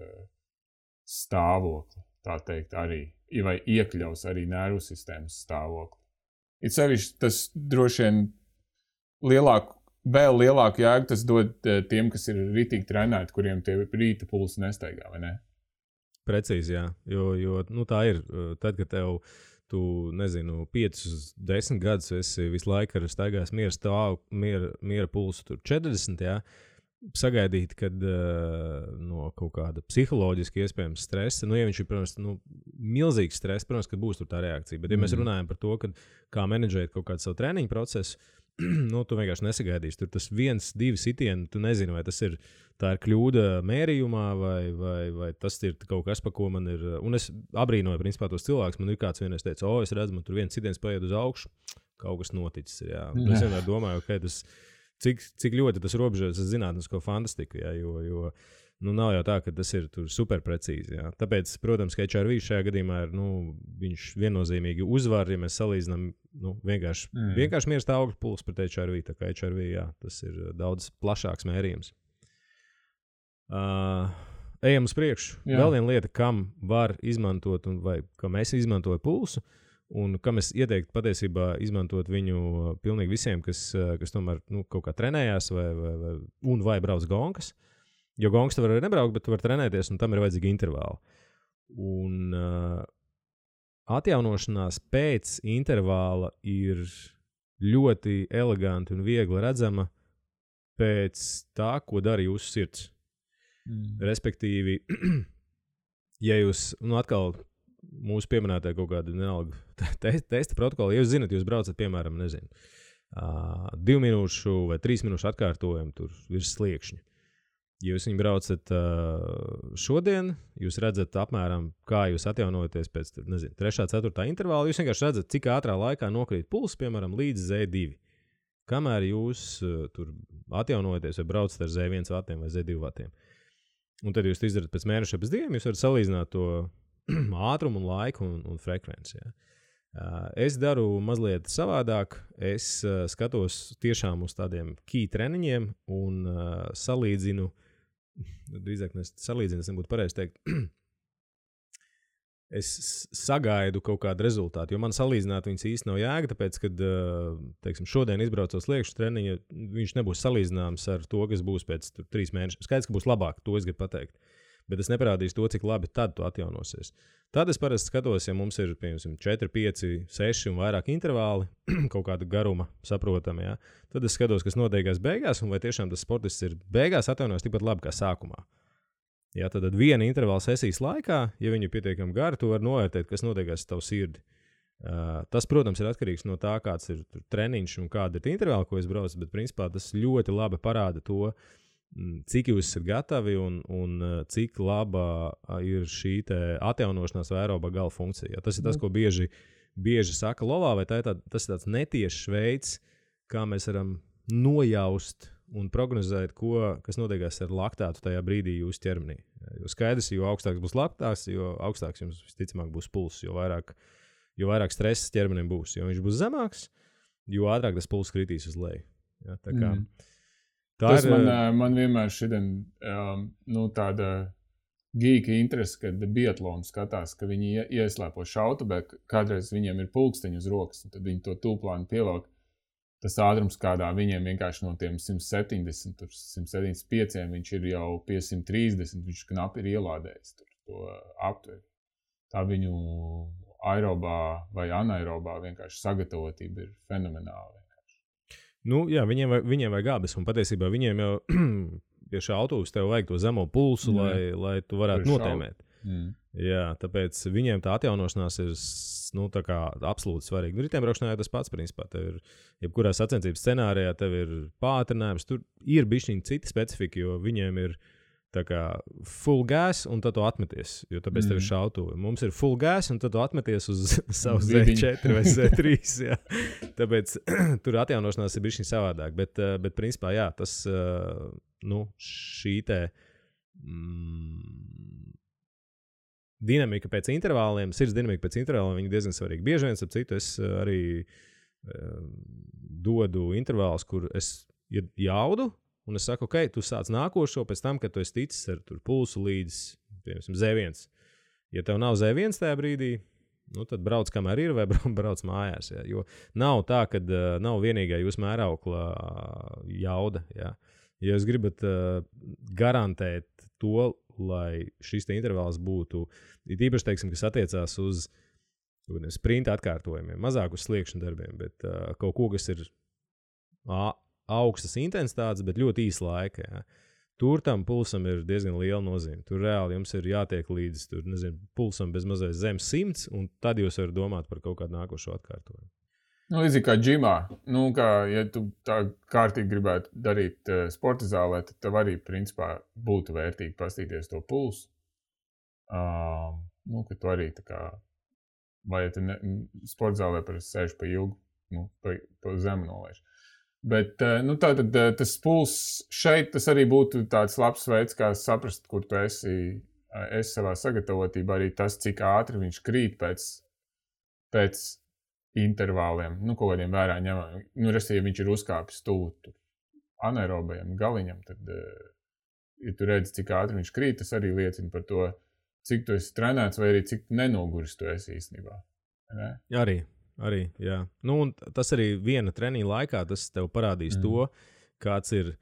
stāvokli, tā teikt, arī, vai iekļaus arī nervu sistēmas stāvokli. It sevišķi tas droši vien vēl lielāku jēgu tas dod tiem, kas ir ritīgi trenēti, kuriem tie rīta pulsi nestaigā, vai ne? Precīzi, jā. Jo tā ir. Tad, kad tu 5-10 gadus esi visu laiku staigājis miera pulsu tur 40, jā, sagaidīt, kad no kaut kāda psiholoģiski iespējams stresa, ja viņš ir, protams, milzīgs stress, protams, ka būs tur tā reakcija. Bet, ja mēs runājam par to, kā menedžēt kaut kādu savu treniņu procesu, tu vienkārši nesagaidīsi. Tur tas 1-2 sitieni, tu nezini, vai tā ir kļūda mērījumā, vai tas ir kaut kas, pa ko man ir. Un es abrīnoju, principā, tos cilvēkus. Man ir kāds vienreiz teica, es redzu, man tur viens sitiens paiet uz augšu, kaut kas noticis. Jā. Es vienmēr domāju, cik ļoti tas robežojas ar zinātnisko fantastiku, jā, jo nav jau tā, ka tas ir super precīzi. Jā. Tāpēc, protams, ka HRV šajā gadījumā ir, viņš viennozīmīgi uzvar, ja mēs salīdzinām vienkārši miera stāvokļa pulsu pret HRV. Tā kā HRV, jā, tas ir daudz plašāks mērījums. Ejam uz priekšu. Jā. Vēl viena lieta, kam var izmantot, vai kam es izmantoju pulsu, un kam es ieteiktu patiesībā izmantot viņu pilnīgi visiem, kas tomēr kaut kā trenējās vai brauc gonkas. Jo gongas tu var arī nebraukt, bet tu var trenēties, un tam ir vajadzīgi intervāli. Un atjaunošanās pēc intervāla ir ļoti eleganti un viegli redzama pēc tā, ko dara jūsu sirds. Respektīvi, ja jūs, atkal mūsu pieminētā kaut kāda vienalga testa protokola, ja jūs zinat, jūs braucat, piemēram, 2 minūšu vai 3 minūšu atkārtojumu tur virs sliekšņa. Ja jūs viņu braucat šodien, jūs redzat apmēram, kā jūs atjaunojaties pēc 3. 4. intervāla. Jūs vienkārši redzat, cik ātrā laikā nokrīt pulss, piemēram, līdz Z2. Kamēr jūs tur atjaunojaties vai braucat ar Z1 vatiem vai Z2 vatiem. Un tad jūs izdarat pēc mēneša pēc 2, jūs varat salīdzināt to ātrumu un laiku un frekvenci. Ja. Es daru mazliet savādāk. Es skatos tiešām uz tādiem key treniņiem un salīdzinu. Drīzāk salīdzinu, es nebūtu pareizi teikt. Es sagaidu kaut kādu rezultātu, jo man salīdzināt viņas īsti nav jēga, tāpēc, kad, teiksim, šodien izbraucot sliekšu treniņu, viņš nebūs salīdzināms ar to, kas būs pēc 3 mēnešiem. Skaidrs, ka būs labāk, to es gribu pateikt. Bet es neparādīšu to, cik labi tad tu atjaunosies. Tad es parasti skatos, ja mums ir, piemēram, 4, 5, 6 un vairāk intervāli, kaut kāda garuma saprotama, ja? Tad es skatos, kas notiekās beigās, un vai tiešām tas sportists ir beigās atjaunojas tikpat labi kā sākumā. Ja, tad viena intervāla sesijas laikā, ja viņi ir pietiekami gari, tu vari novērtēt, kas notiekās ar tavu sirdi. Tas, protams, ir atkarīgs no tā, kāds ir treniņš un kāda ir intervāla, ko es braucu, bet principā tas ļoti labi parāda to, cik jūs esat gatavi un cik laba ir šī atjaunošanās vai aerobā gala funkcija. Ja, tas ir tas, ko bieži saka lovā, vai tas ir tāds netiešs veids, kā mēs varam nojaust un prognozēt, kas notiekās ar laktātu tajā brīdī jūsu ķermenī. Jo skaidrs, jo augstāks būs laktāts, jo augstāks jums visticamāk būs pulss, jo vairāk stresa ķermenim būs. Jo viņš būs zemāks, jo ātrāk tas pulss kritīs uz leju. Ja, tā kā, tas man vienmēr šodien tāda geeka interese, kad biatlonu skatās, ka viņi ieslēpo šautavē, kādreiz viņiem ir pulksteņi uz rokas, un tad viņi to tūplānu pievelk. Tas ātrums, kādā viņiem vienkārši no tiem 170, 175, viņš ir jau pie 130, viņš knapi ir ielādējis to aptveri. Tā viņu aerobā vai anaerobā vienkārši sagatavotība ir fenomenāla. Nu, jā, viņiem vajag abas, un patiesībā viņiem jau pie šā autobusa tev vajag to zemo pulsu, lai tu varētu notēmēt. Jā, tāpēc viņiem tā atjaunošanās ir tā kā absolūti svarīga. Riteņbraukšanā jau tas pats, principā. Tev ir, jebkurā sacensības scenārijā, tev ir pātrinājums. Tur ir bišķiņi cita specifika, jo viņiem ir tā kā full gas un tad tu atmeties, jo tāpēc tev ir šautuve. Mums ir full gas un tad tu atmeties uz savu Z4 vai Z3. Jā. Tāpēc tur atjaunošanās ir bišķiņi savādāk. Bet principā, jā, tas šī dinamika pēc intervāliem, sirds dinamika pēc intervāliem, viņi diezgan svarīgi. Bieži vien, ap citu, es arī dodu intervālus, kur es jaudu, un es saku, ok, tu sāc nākošo pēc tam, kad tu esi ticis ar pulsu līdz, piemēram, Z1. Ja tev nav Z1 tajā brīdī, tad brauc kamēr ir vai brauc mājās. Ja? Jo nav tā, ka nav vienīgā jūsu mēraukla jauda. Ja? Ja jūs gribat garantēt to, lai šis intervāls būtu, īpaši, teiksim, kas attiecās uz sprinta atkārtojumiem, mazāk uz sliekšņu darbiem, bet kaut ko, kas ir augstas intensitātes, bet ļoti īsa laika. Ja. Tur tam pulsam ir diezgan liela nozīme. Tur reāli jums ir jātiek līdz pulsam bez mazais zem 100, un tad jūs varat domāt par kaut kādu nākošo atkārtojumu. Līdzīgi kā džimā, ja tu tā kārtīgi gribētu darīt sporta zālē, tad tev arī, principā, būtu vērtīgi pastīties to pulsu. Ka tu arī tā kā, vai ja tu sporta zālē parasti sēž pa ilgu, pa zemu nolaiž. Bet, tātad tas pulss šeit, tas arī būtu tāds labs veids, kā saprast, kur tu esi savā sagatavotībā, arī tas, cik ātri viņš krīt pēc intervāliem, kaut kādiem vērā ņemam. Ja viņš ir uzkāpis tuvu anaerobajam galiņam, tad, ja tu redzi, cik ātri viņš krīt, tas arī liecina par to, cik tu esi trenēts vai arī cik nenoguris tu esi īstenībā. Ne? Arī, jā. Un tas arī viena treniņa laikā, tas tev parādīs to, kāds ir,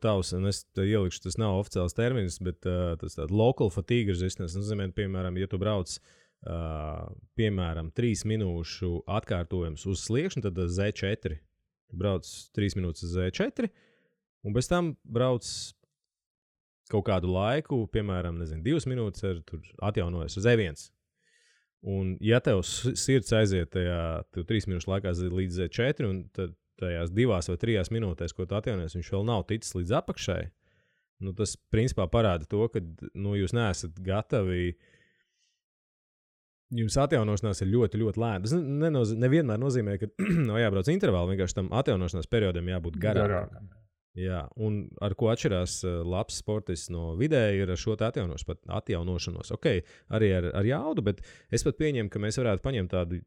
tavs, un es te ielikšu, tas nav oficiāls termins, bet tas tāds local fatigue resistance, nozīmē, piemēram, ja tu brauc piemēram, 3 minūšu atkārtojums uz sliekšņa, tad Z4. Brauc 3 minūtes uz Z4, un bez tam brauc kaut kādu laiku, piemēram, 2 minūtes atjaunojas uz Z1. Un ja tev sirds aiziet tajā 3 minūšu laikā līdz Z4, un tad tajās 2 vai 3 minūtēs, ko tu atjaunojies, viņš vēl nav ticis līdz apakšai, tas principā parāda to, ka jūs neesat gatavi. Jums atjaunošanās ir ļoti, ļoti lēna. Tas nevienmēr nozīmē, ka jābrauc intervāli, vienkārši tam atjaunošanās periodam jābūt garākam. Jā, un ar ko atšķirās labs sportists no vidēji ir ar šo atjaunošanos. Ok, arī ar jaudu, bet es pat pieņemu, ka mēs varētu paņemt tādu,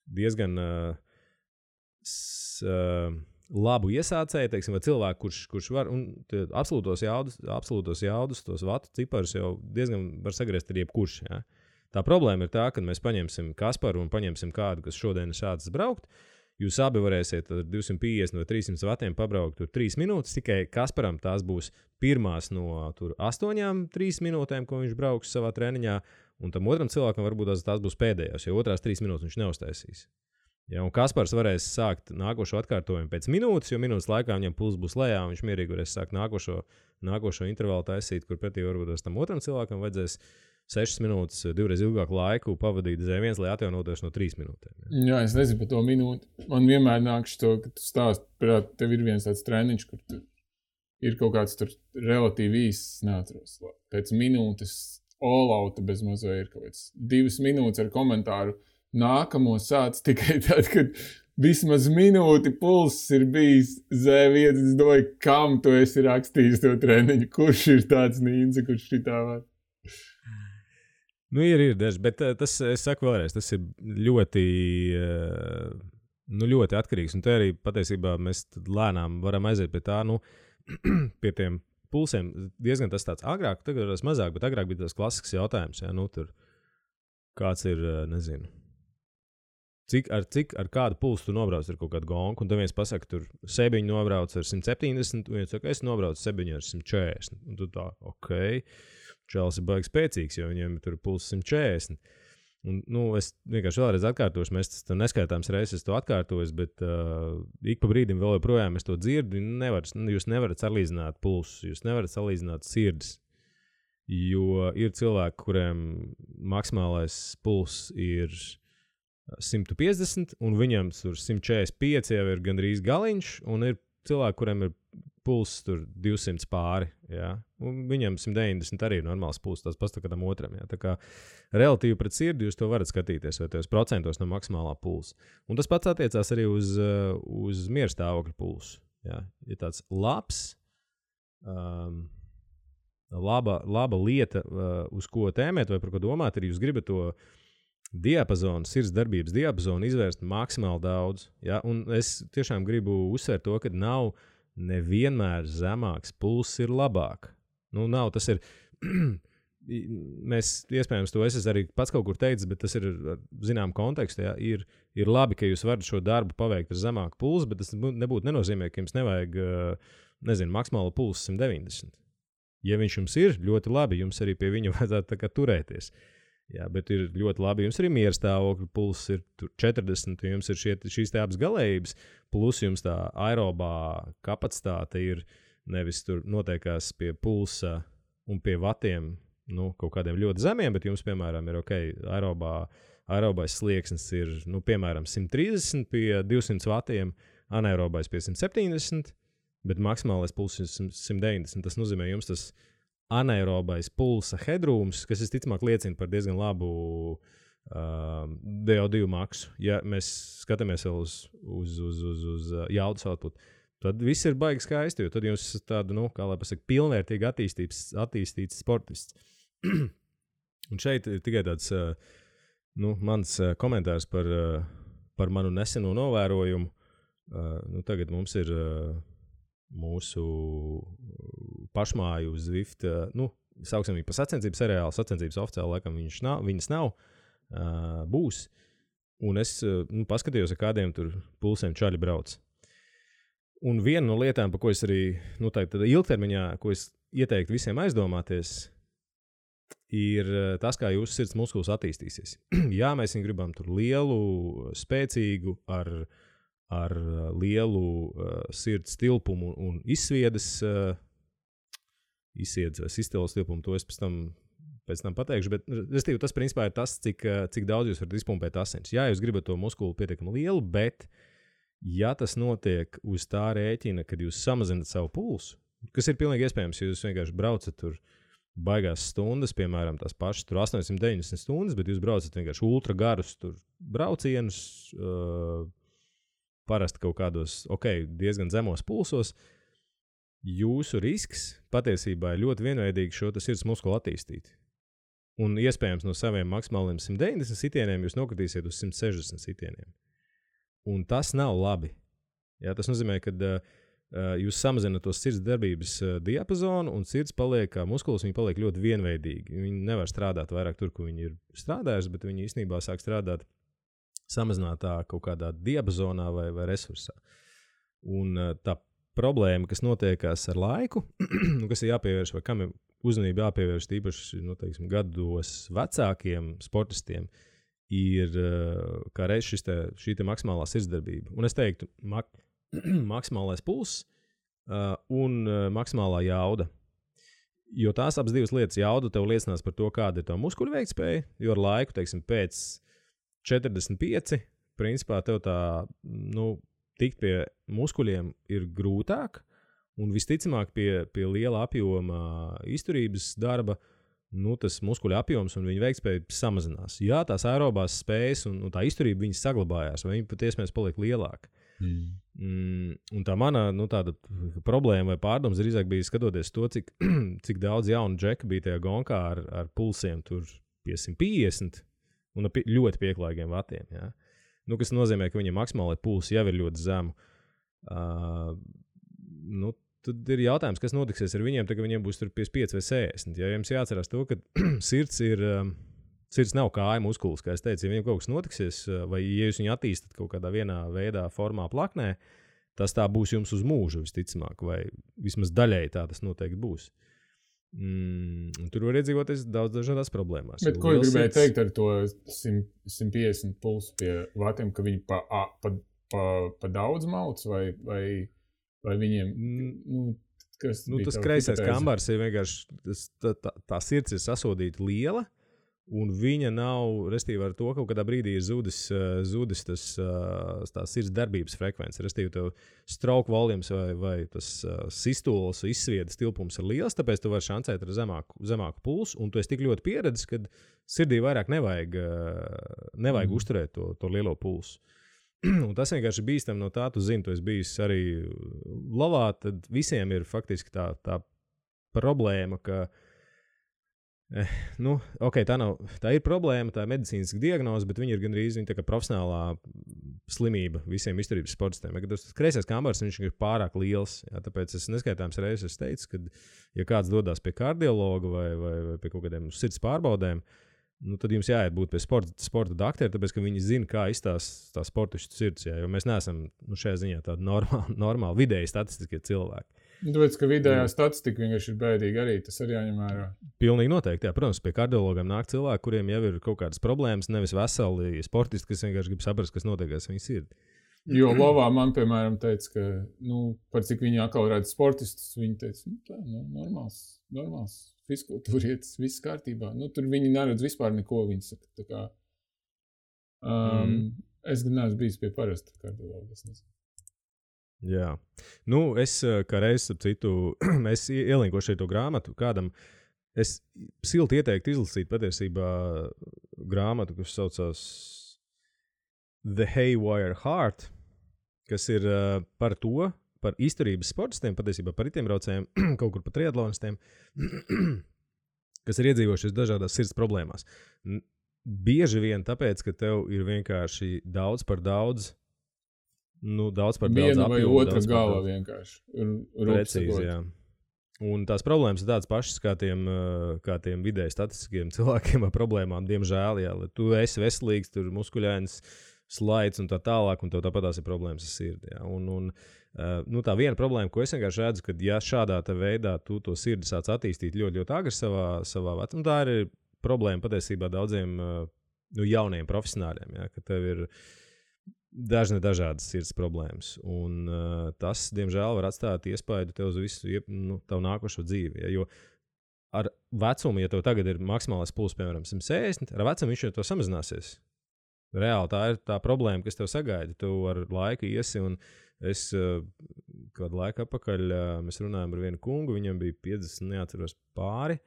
diezgan labu iesācēju, teiksim, vai cilvēku, kurš var, un absolūtos jaudus, tos vatu ciparus jau diezgan var sagriezt ar jebkurš, jā. Tā problēma ir tā, ka mēs paņemsim Kasparu un paņemsim kādu, kas šodien ir sācis braukt. Jūs abi varēsiet ar 250 vai 300 vatiem pabraukt tur 3 minūtes, tikai Kasparam tās būs pirmās no 8-3 minūtēm, ko viņš brauks savā treniņā, un tam otram cilvēkam varbūt tās būs pēdējās, jo otrās 3 minūtes viņš neuztaisīs. Ja, un Kaspars varēs sākt nākošo atkārtojumu pēc minūtes, jo minūtes laikā viņam puls būs lejā, un viņš mierīgi varēs sākt nākošo intervālu taisīt, kur pretī varbūt tam otram cilvēkam vajadzēs 6 minūtes, 2 reizes ilgāku laiku pavadīt zem viens, lai atjaunoties no 3 minūtēm. Jā, es nezinu par to minūti. Man vienmēr nāks to, ka tu stāst, prāt, tev ir viens tāds treniņš, kur tu ir kaut kāds tur relatīvi īsts, neatceros. Pēc minūtes all-outa bez mazo ir kaut kāds 2 minūtes ar komentāru. Nākamo sāc tikai tad, kad vismaz minūti pulss ir bijis Z1. Es domāju, kam tu esi rakstījis to treniņu? Kurš ir tāds nīnce, kurš šitā var? Ir daži, bet tas, es saku vēlreiz, tas ir ļoti, ļoti atkarīgs. Un te arī patiesībā mēs lēnām varam aiziet pie tā, pie tiem pulsiem. Diezgan tas tāds agrāk, tagad ir mazāk, bet agrāk bija tas klasisks jautājums. Ja? Tur kāds ir, nezinu, ar kādu pulsu tu nobrauc ar kaut kādu gonku, un tad viens pasaka, tur Sebiņu nobrauc ar 170, un viens saka, es nobraucu Sebiņu ar 140. Un tu tā, ok. Čēlis ir baigi spēcīgs, jo viņiem tur pulss 140. Un, es vienkārši vēlreiz atkārtošu, mēs tas neskaitāms reizes to atkārtojas, bet ik pa brīdim vēl joprojām es to dzirdu. Jūs nevarat salīdzināt pulsus, jūs nevarat salīdzināt sirdis, jo ir cilvēki, kuriem maksimālais pulss ir 150, un viņam tur 145 jau ir gandrīz galiņš, un ir cilvēki, kuriem ir pulss tur 200 pāri, jā. Un viņam 190 arī ir normāls pulss, tas pats kādam otram, jā. Tā kā relatīvi pret sirdi jūs to varat skatīties, vai tos procentos no maksimālā pulsa. Un tas pats attiecās arī uz mierstāvokļa pulsu, jā. Ja tāds labs, laba lieta, uz ko tēmēt vai par ko domāt, ir jūs gribat to diapazonu, sirds darbības diapazonu izvērst maksimāli daudz, jā. Un es tiešām gribu uzsvērt to, ka nav nevienmēr zemāks pulss ir labāk. Nav, tas ir, mēs iespējams to es arī pats kaut kur teicu, bet tas ir zinām kontekstu, jā, ir labi, ka jūs varat šo darbu paveikt ar zemāku pulsu, bet tas nenozīmē, ka jums nevajag, maksimālo pulsu 190. Ja viņš jums ir, ļoti labi, jums arī pie viņa vajadzētu tā kā turēties. Jā, bet ir ļoti labi. Jums arī mierstāvokļa pulss ir 40, jums ir šīs te abas galējības, plus jums tā aerobā kapacitāte ir nevis tur noteikās pie pulsa un pie vatiem, kaut kādiem ļoti zemiem, bet jums, piemēram, ir aerobais slieksnis ir, piemēram, 130 pie 200 vatiem, anaerobais pie 170, bet maksimālais pulss ir 190. Tas nozīmē, jums tas anaerobais pulsa hedrūms, kas visticamāk liecina par diezgan labu DO2 maksu. Ja mēs skatāmies vēl uz jaudas output, tad viss ir baigi skaisti, jo tad jums tādu, kā lai pasaka, pilnvērtīgi attīstīts sportists. Un šeit ir tikai tāds mans komentārs par manu neseno novērojumu. Tagad mums ir mūsu pašmāju Zwift, sauksim viņu par sacensības seriālu, sacensības oficiāli laikam viņas nav, būs. Un es paskatījos, ar kādiem tur pulsiem čaļi brauc. Un viena no lietām, par ko es arī, tādā ilgtermiņā, ko es ieteiktu visiem aizdomāties, ir tas, kā jūsu sirds muskulis attīstīsies. Jā, mēs viņu gribam tur lielu, spēcīgu, ar lielu sirds tilpumu un izsviedes vai sistelas tilpumu, to es pēc tam pateikšu, bet tas principā ir tas, cik daudz jūs varat izpumpēt asins. Jā, jūs gribat to muskulu pietiekami lielu, bet ja tas notiek uz tā rēķina, kad jūs samazinat savu pulsu, kas ir pilnīgi iespējams, ja jūs vienkārši braucat tur baigās stundas, piemēram, tās pašas tur 890 stundas, bet jūs braucat vienkārši ultra garus tur braucienus, parasti kaut kādos, diezgan zemos pulsos. Jūsu risks patiesībā ir ļoti vienveidīgi šo sirds muskulu attīstīt. Un iespējams no saviem maksimāliem 190 sitieniem jūs nokritīsiet uz 160 sitieniem. Un tas nav labi. Jā, tas nozīmē, ka jūs samazināt to sirds darbības diapazonu un sirds paliek, kā muskulis, viņi paliek ļoti vienveidīgi. Viņi nevar strādāt vairāk tur, kur viņi ir strādājuši, bet viņi īstenībā sāk strādāt samazinātā kaut kādā diapazonā vai resursā. Un tā problēma, kas notiekās ar laiku, kas ir jāpievērš vai kam ir uzmanība jāpievērš tīpaši gados vecākiem sportistiem, ir kā reiz šī maksimālā sirdsdarbība. Un es teiktu, maksimālais pulss un maksimālā jauda. Jo tās abas divas lietas, jauda tev liecinās par to, kāda ir tā muskuļu veiktspēja, jo ar laiku, pēc 45, principā tev tā, tikt pie muskuļiem ir grūtāk, un visticamāk pie liela apjoma izturības darba, tas muskuļu apjoms un viņa veiktspēja samazinās. Jā, tās aerobās spējas un tā izturība viņas saglabājās, vai viņa pat iespējams paliek lielāka. Un tā mana tāda problēma vai pārdoms drīzāk bija skatoties to, cik daudz jaunu džeku bija tajā gonkā ar pulsiem tur pie 150 un ļoti pieklājīgiem vatiem. Ja? Kas nozīmē, ka viņam maksimālai pulsi jau ir ļoti zemu. Tad ir jautājums, kas notiksies ar viņiem, tad, kad viņiem būs 55 vai 60. Ja jums jāatcerās to, ka sirds nav kāja muskulis, kā es teicu, ja viņiem kaut kas notiksies, vai ja jūs viņu attīstat kaut kādā vienā veidā, formā, plaknē, tas tā būs jums uz mūžu visticamāk, vai vismaz daļēji tā tas noteikti būs. Tur var iedzīvoties daudz dažādās problēmās. Bet ko gribēju teikt ar to 150 pulsu pie vatiem, ka viņi pa daudz mauc, vai viņiem, tas kreisais kambars ir vienkārši, tā sirds ir sasodīta liela, un viņa nav, restīvi ar to, kaut kādā brīdī ir zudis tā sirds darbības frekvence. Restīvi tev stroke volumes vai tas sistols, izsviedas tilpums ir liels, tāpēc tu vari šancēt ar zemāku pulsu, un tu esi tik ļoti pieredzis, ka sirdī vairāk nevajag uzturēt to lielo pulsu. Un tas vienkārši bīstam no tā, tu zini, tu esi bijis arī lavā, tad visiem ir faktiski tā problēma, ka tā ir problēma, tā ir medicīniska diagnoze, bet viņa ir gandrīz tā kā profesionālā slimība visiem izturības sportistiem. Ja, tas kreisais kambars, viņš ir pārāk liels, ja, tāpēc es neskaitāms reizes teicu, ka ja kāds dodas pie kardiologa vai pie kaut kādiem sirds pārbaudēm, tad jums jāiet būt pie sporta doktora, tāpēc, ka viņi zina, kā izstāst tā sportistu sirds, ja, jo mēs neesam šajā ziņā tādi normāli vidēji statistiskie cilvēki. Tāpēc, ka vidējā statistika vienkārši ir bēdīga arī, tas arī jāņem vērā. Pilnīgi noteikti, jā. Protams, pie kardiologiem nāk cilvēki, kuriem jau ir kaut kādas problēmas, nevis veseli sportisti, kas vienkārši grib saprast, kas notiekās viņas sirdi. Jo Lovā man, piemēram, teica, ka, par cik viņi atkal redz sportistus, viņi teica, normāls fizkultūrietis, viss kārtībā. Tur viņi neredz vispār neko, viņi saka, tā kā. Es gan neesmu bijis pie parasta kardiologa, es nezinu. Jā. Es kā reiz, ap citu, es ielinkošu šo grāmatu kādam, es silti ieteiktu izlasīt patiesībā grāmatu, kas saucās The Haywire Heart, kas ir par izturības sportistiem, patiesībā par riteņbraucējiem, kaut kur par triatlonistiem, kas ir iedzīvojušies dažādās sirds problēmās. Bieži vien tāpēc, ka tev ir vienkārši daudz par daudz viena vai otra gala vienkārši. Precīzi, jā. Un tās problēmas ir tādas pašas kā tiem vidēji statistiskiem cilvēkiem ar problēmām, diemžēl, jā. Tu esi veselīgs, tur muskuļains, slaids un tā tālāk, un tev tāpatās ir problēmas ar sirdi. Ja. Tā viena problēma, ko es vienkārši redzu, ka ja šādā veidā tu to sirdi sāc attīstīt ļoti, ļoti agri savā vecumā, tā ir problēma patiesībā daudziem jauniem profesionāļiem, ja, ka tev ir dažādas sirds problēmas. Un tas, diemžēl, var atstāt iespaidu tev uz visu tavu nākošo dzīvi. Ja, jo ar vecumu, ja tev tagad ir maksimālais pulss, piemēram, 160, ar vecumu viņš jau to samazināsies. Reāli tā ir tā problēma, kas tev sagaida. Tu ar laiku iesi, un es kādu laiku atpakaļ mēs runājām ar vienu kungu, viņam bija 50, neatceros pāri.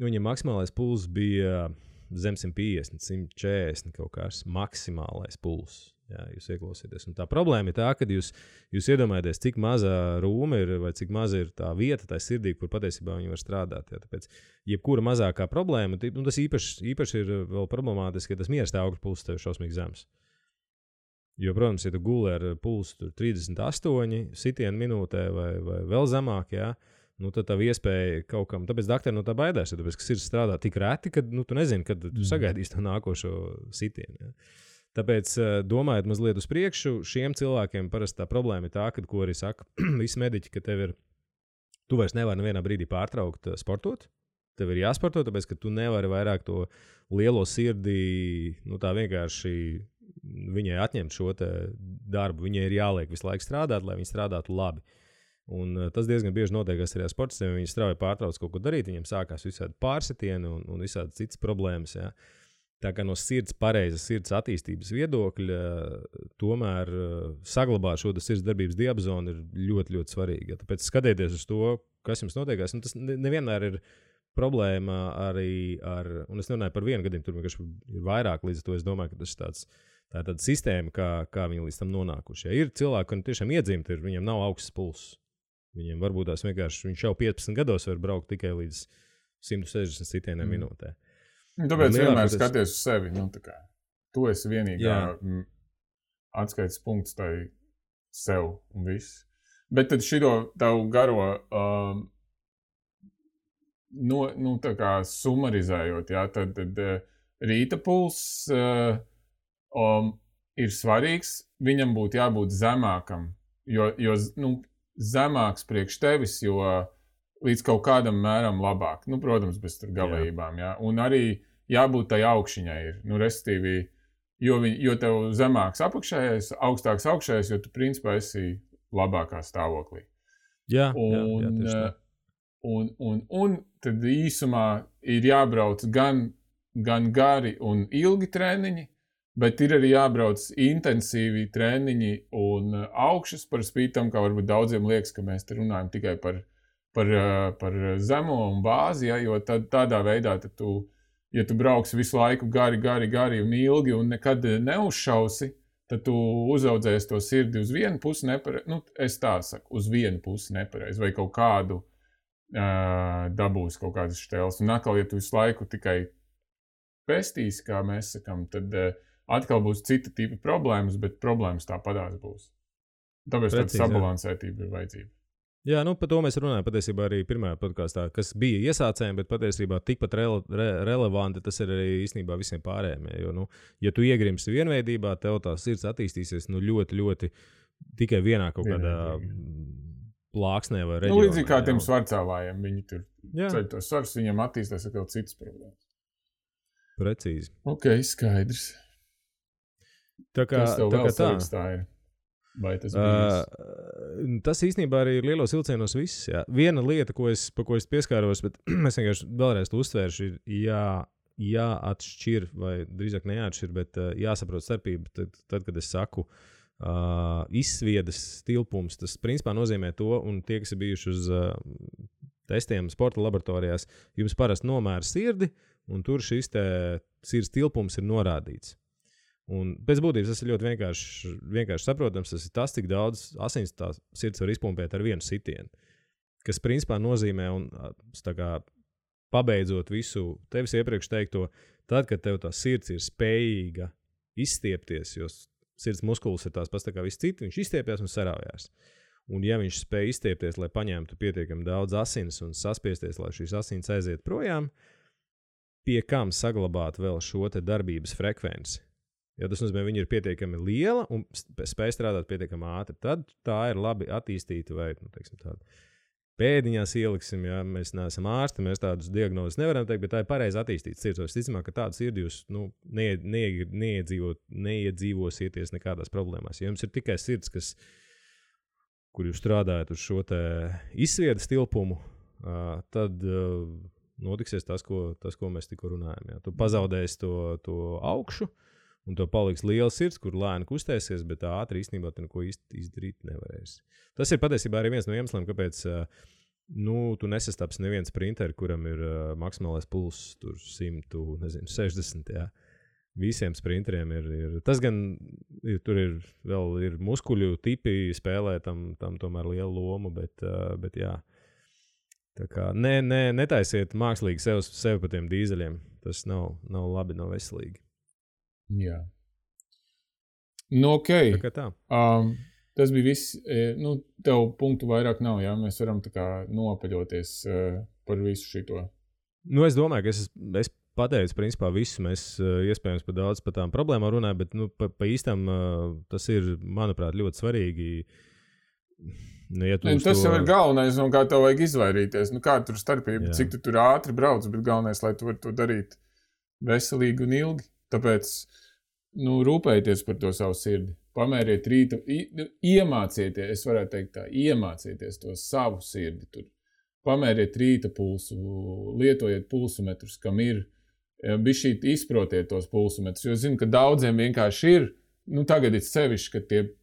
Viņam maksimālais pulss bija zem 150, 140 kaut kāds maksimālais pulss. Jā, jūs ieklausieties. Un tā problēma ir tā, ka jūs iedomājaties, cik maza rūma ir vai cik maza ir tā vieta, tā sirdī, kur patiesībā viņi var strādāt. Jā. Tāpēc, jebkura mazākā problēma, tas īpaši ir vēl problemātiski, ka tas miera stāvokļa pulss tev ir šausmīgi zems. Jo, protams, ja tu guli ar pulsu 38 sitienu minūtē vai vēl zemāk, jā, tad tā iespēja kaut kam, tāpēc daktari no tā baidās, tāpēc, ka sirds strādā tik reti, ka tu nezini, kad tu sagaidīsi to nākošo sitienu. Jā. Tāpēc, domājot mazliet uz priekšu, šiem cilvēkiem parasti tā problēma ir tā, ka, ko arī saka visi mediķi, ka tu vairs nevari nevienā brīdī pārtraukt sportot. Tev ir jāsporto, tāpēc, ka tu nevari vairāk to lielo sirdī, tā vienkārši viņai atņemt šo te darbu. Viņai ir jāliek visu laiku strādāt, lai viņi strādātu labi. Un tas diezgan bieži notiekās arī ar sportistiem. Viņi strauji pārtrauc kaut ko darīt, viņiem sākās visādi pārsitieni un visādi citas problēmas, jā. Tā kā no pareizas sirds attīstības viedokļa, tomēr saglabāt šo sirds darbības diapazonu ir ļoti, ļoti svarīgi. Ja? Tāpēc skatieties uz to, kas jums notiekās. Tas nevienmēr ir problēma arī ar, un es nerunāju par vienu gadījumu, tur vienkārši ir vairāk, līdz ar to es domāju, ka tas ir tā ir tāda sistēma, kā viņi līdz tam nonākuši. Ja? Ir cilvēki, kuriem tiešām iedzimti, viņiem nav augsts pulss. Viņiem varbūt tās vienkārši, viņš jau 15 gados var braukt tikai līdz 160 sitieniem minūtē. Tāpēc vienmēr skaties uz sevi. Tu esi vienīgā atskaites punkts tai sev un viss. Bet tad šito tavu garo tā kā sumarizējot, jā, tad rīta pulss ir svarīgs. Viņam būtu jābūt zemākam, jo zemāks priekš tevis, jo līdz kaut kādam mēram labāk. Protams, bez tur galējībām, jā. Un arī jābūt tai augšiņai ir. Restīvi, jo tev zemāks apakšējais, augstāks augšējais, jo tu principā esi labākā stāvoklī. Jā, un tad īsumā ir jābrauc gan gari un ilgi treniņi, bet ir arī jābrauc intensīvi treniņi un augšas par spītam, kā varbūt daudziem liekas, ka mēs te runājam tikai par zemo un bāzi, ja, jo tādā veidā tad ja tu brauksi visu laiku gari un ilgi un nekad neuzšausi, tad tu uzaudzēsi to sirdi uz vienu pusi nepareizi, es tā saku, uz vienu pusi nepareizi, vai kaut kādu dabūs kaut kādas šķēles. Un atkal, ja tu visu laiku tikai pestīsi, kā mēs sakam, tad atkal būs cita tipa problēmas, bet problēmas tāpadās būs. Tāpēc tāda sabalansētība ir vajadzība. Jā, par to mēs runājam patiesībā arī pirmajā podkastā, kas bija iesācējiem, bet patiesībā tikpat relevanti tas ir arī īstenībā visiem pārējiem. Jo, ja tu iegrimsi vienveidībā, tev tā sirds attīstīsies ļoti, ļoti tikai vienā kaut kādā plāksnē vai reģionā. Līdzīgi kā tiem svarcēlājiem, viņi tur ceļ tos svarus, viņiem attīstās atkal citas problēmas. Precīzi. Ok, skaidrs. Kas tev vēl svarīgs tā ir? Vai tas tas īstenībā arī ir lielos vilcienos viss. Jā. Viena lieta, pa ko es pieskāros, bet es vienkārši vēlreiz to uzsvēršu, ir jāatšķir, vai drīzāk neatšķir, bet jāsaprot starpība. Tad, kad es saku izsviedas tilpums, tas principā nozīmē to, un tie, kas ir bijuši uz testiem sporta laboratorijās, jums parasti nomēra sirdi, un tur šis sirds tilpums ir norādīts. Un pēc būtības tas ir ļoti vienkārši saprotams. Tas ir tas, cik daudz asins tā sirds var izpumpēt ar vienu sitienu. Kas principā nozīmē, un tā kā pabeidzot visu tevis iepriekš teikto, tad, kad tev tā sirds ir spējīga izstiepties, jo sirds muskulis ir tās pats tā kā viss citi, viņš izstiepjas un sarāvjās. Un ja viņš spēj izstiepties, lai paņemtu pietiekami daudz asins un saspiesties, lai šīs asins aiziet projām, pie kam saglabāt vēl šo te darbības frekvenci? Ja tas nozīmē, viņa ir pietiekami liela un spēj strādāt pietiekami ātri, tad tā ir labi attīstīta vai, tāda pēdiņās ieliksim, ja mēs neesam ārsti, mēs tādus diagnozes nevaram teikt, bet tā ir pareizi attīstīta sirds. Es ticamāk, ka tādu sirdi jūs neiedzīvosieties nekādās problēmās. Ja jums ir tikai sirds, kur jūs strādājat uz šo te izsviedas tilpumu, tad notiksies tas, ko mēs tikko runājam. Ja. Tu pazaudēsi to augšu, un to paliks liela sirds, kur lēni kustēsies, bet ātri īstenībā tu neko īsti izdarīt nevarēsi. Tas ir patiesībā arī viens no iemesliem, kāpēc tu nesastaps neviens sprinteri, kuram ir maksimālais pulss tur 160, jā. Visiem sprinteriem ir tas gan, tur ir muskuļu tipi spēlē tam tomēr lielu lomu, bet jā. Tā kā netaisiet mākslīgi sev pa tiem dīzeļiem. Tas nav labi, nav veselīgi. Jā. Nu, okei. Tā kā tā. Tas bija viss. Tev punktu vairāk nav, jā? Mēs varam tā kā nopaļoties par visu šito. Es domāju, ka es pateicu, principā, visu. Mēs iespējams par daudz par tām problēmām runājam, bet pa īstam tas ir, manuprāt, ļoti svarīgi. Ja tas jau ir galvenais, no kā tev vajag izvairīties. Kāda tur starpība, cik tu tur ātri brauc, bet galvenais, lai tu vari to darīt veselīgi un ilgi. Tāpēc, rūpējieties par to savu sirdi. Pamēriet rītu, iemācieties, es varētu teikt tā, iemācieties to savu sirdi tur. Pamēriet rīta pulsu, lietojiet pulsometrus, kam ir, bišķīt izprotiet tos pulsometrus, jo zinu, ka daudziem vienkārši ir, tagad ir sevišķi, ka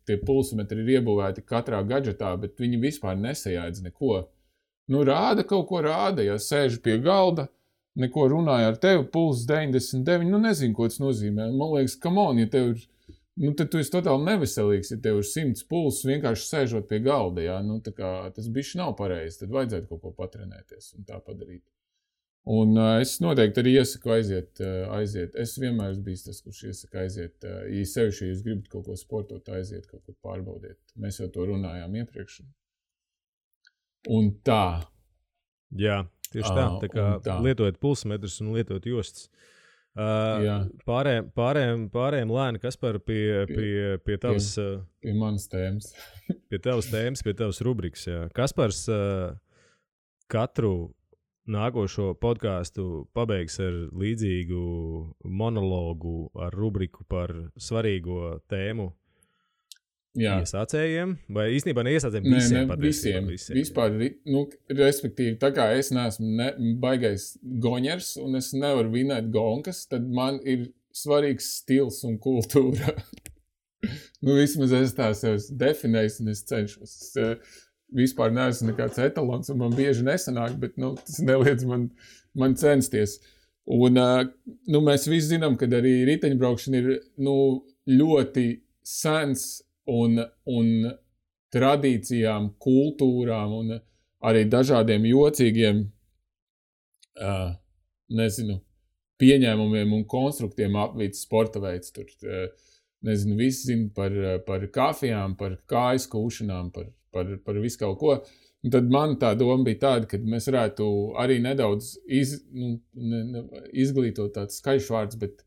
tie pulsometri ir iebūvēti katrā gadžetā, bet viņi vispār nesajādz neko. Rāda kaut ko rāda, ja sēžu pie galda, neko runāja ar tevi, pulss 99, nezinu, ko tas nozīmē. Man liekas, come on, ja tev ir, tad tu esi totāli neveselīgs, ja tev ir 100 pulss vienkārši sēžot pie galda, jā, tā kā tas bišķi nav pareizi, tad vajadzētu kaut ko patrenēties un tā padarīt. Un es noteikti arī iesaku aiziet. Es vienmēr esmu bijis tas, kurš iesaka aiziet. Ja sevišķi, ja jūs gribat kaut ko sportot, aiziet, kaut ko pārbaudiet. Mēs jau to runājām iepriekš. Un tā. Jā, tieši tā. Tā kā lietojat pulsmetrus un lietojat jostas. Pārējiem lēni, Kaspar, pie tavas... Pie manas tēmas. Pie tavas tēmas, pie tavas rubrikas, jā. Kaspars katru nākošo podcastu pabeigs ar līdzīgu monologu ar rubriku par svarīgo tēmu iesācējiem, vai īstenībā neiesācējiem visiem? Visiem. Vispār, respektīvi, tā kā es neesmu baigais goņers un es nevaru vinēt gonkas, tad man ir svarīgs stils un kultūra. Vismaz es tā sev definēju un es cenšos. Vispār neesmu nekāds etalons, un man bieži nesanāk, bet tas neliedz man censties. Un mēs visi zinām, ka arī riteņbraukšana ir ļoti sens un tradīcijām, kultūrām un arī dažādiem jocīgiem, pieņēmumiem un konstruktiem apvīts sporta veids. Tur, visi zina par kafijām, par kājas kūšanām, par visu kaut ko. Un tad man tā doma bija tāda, ka mēs varētu arī nedaudz izglītot tāds skaļš vārds, bet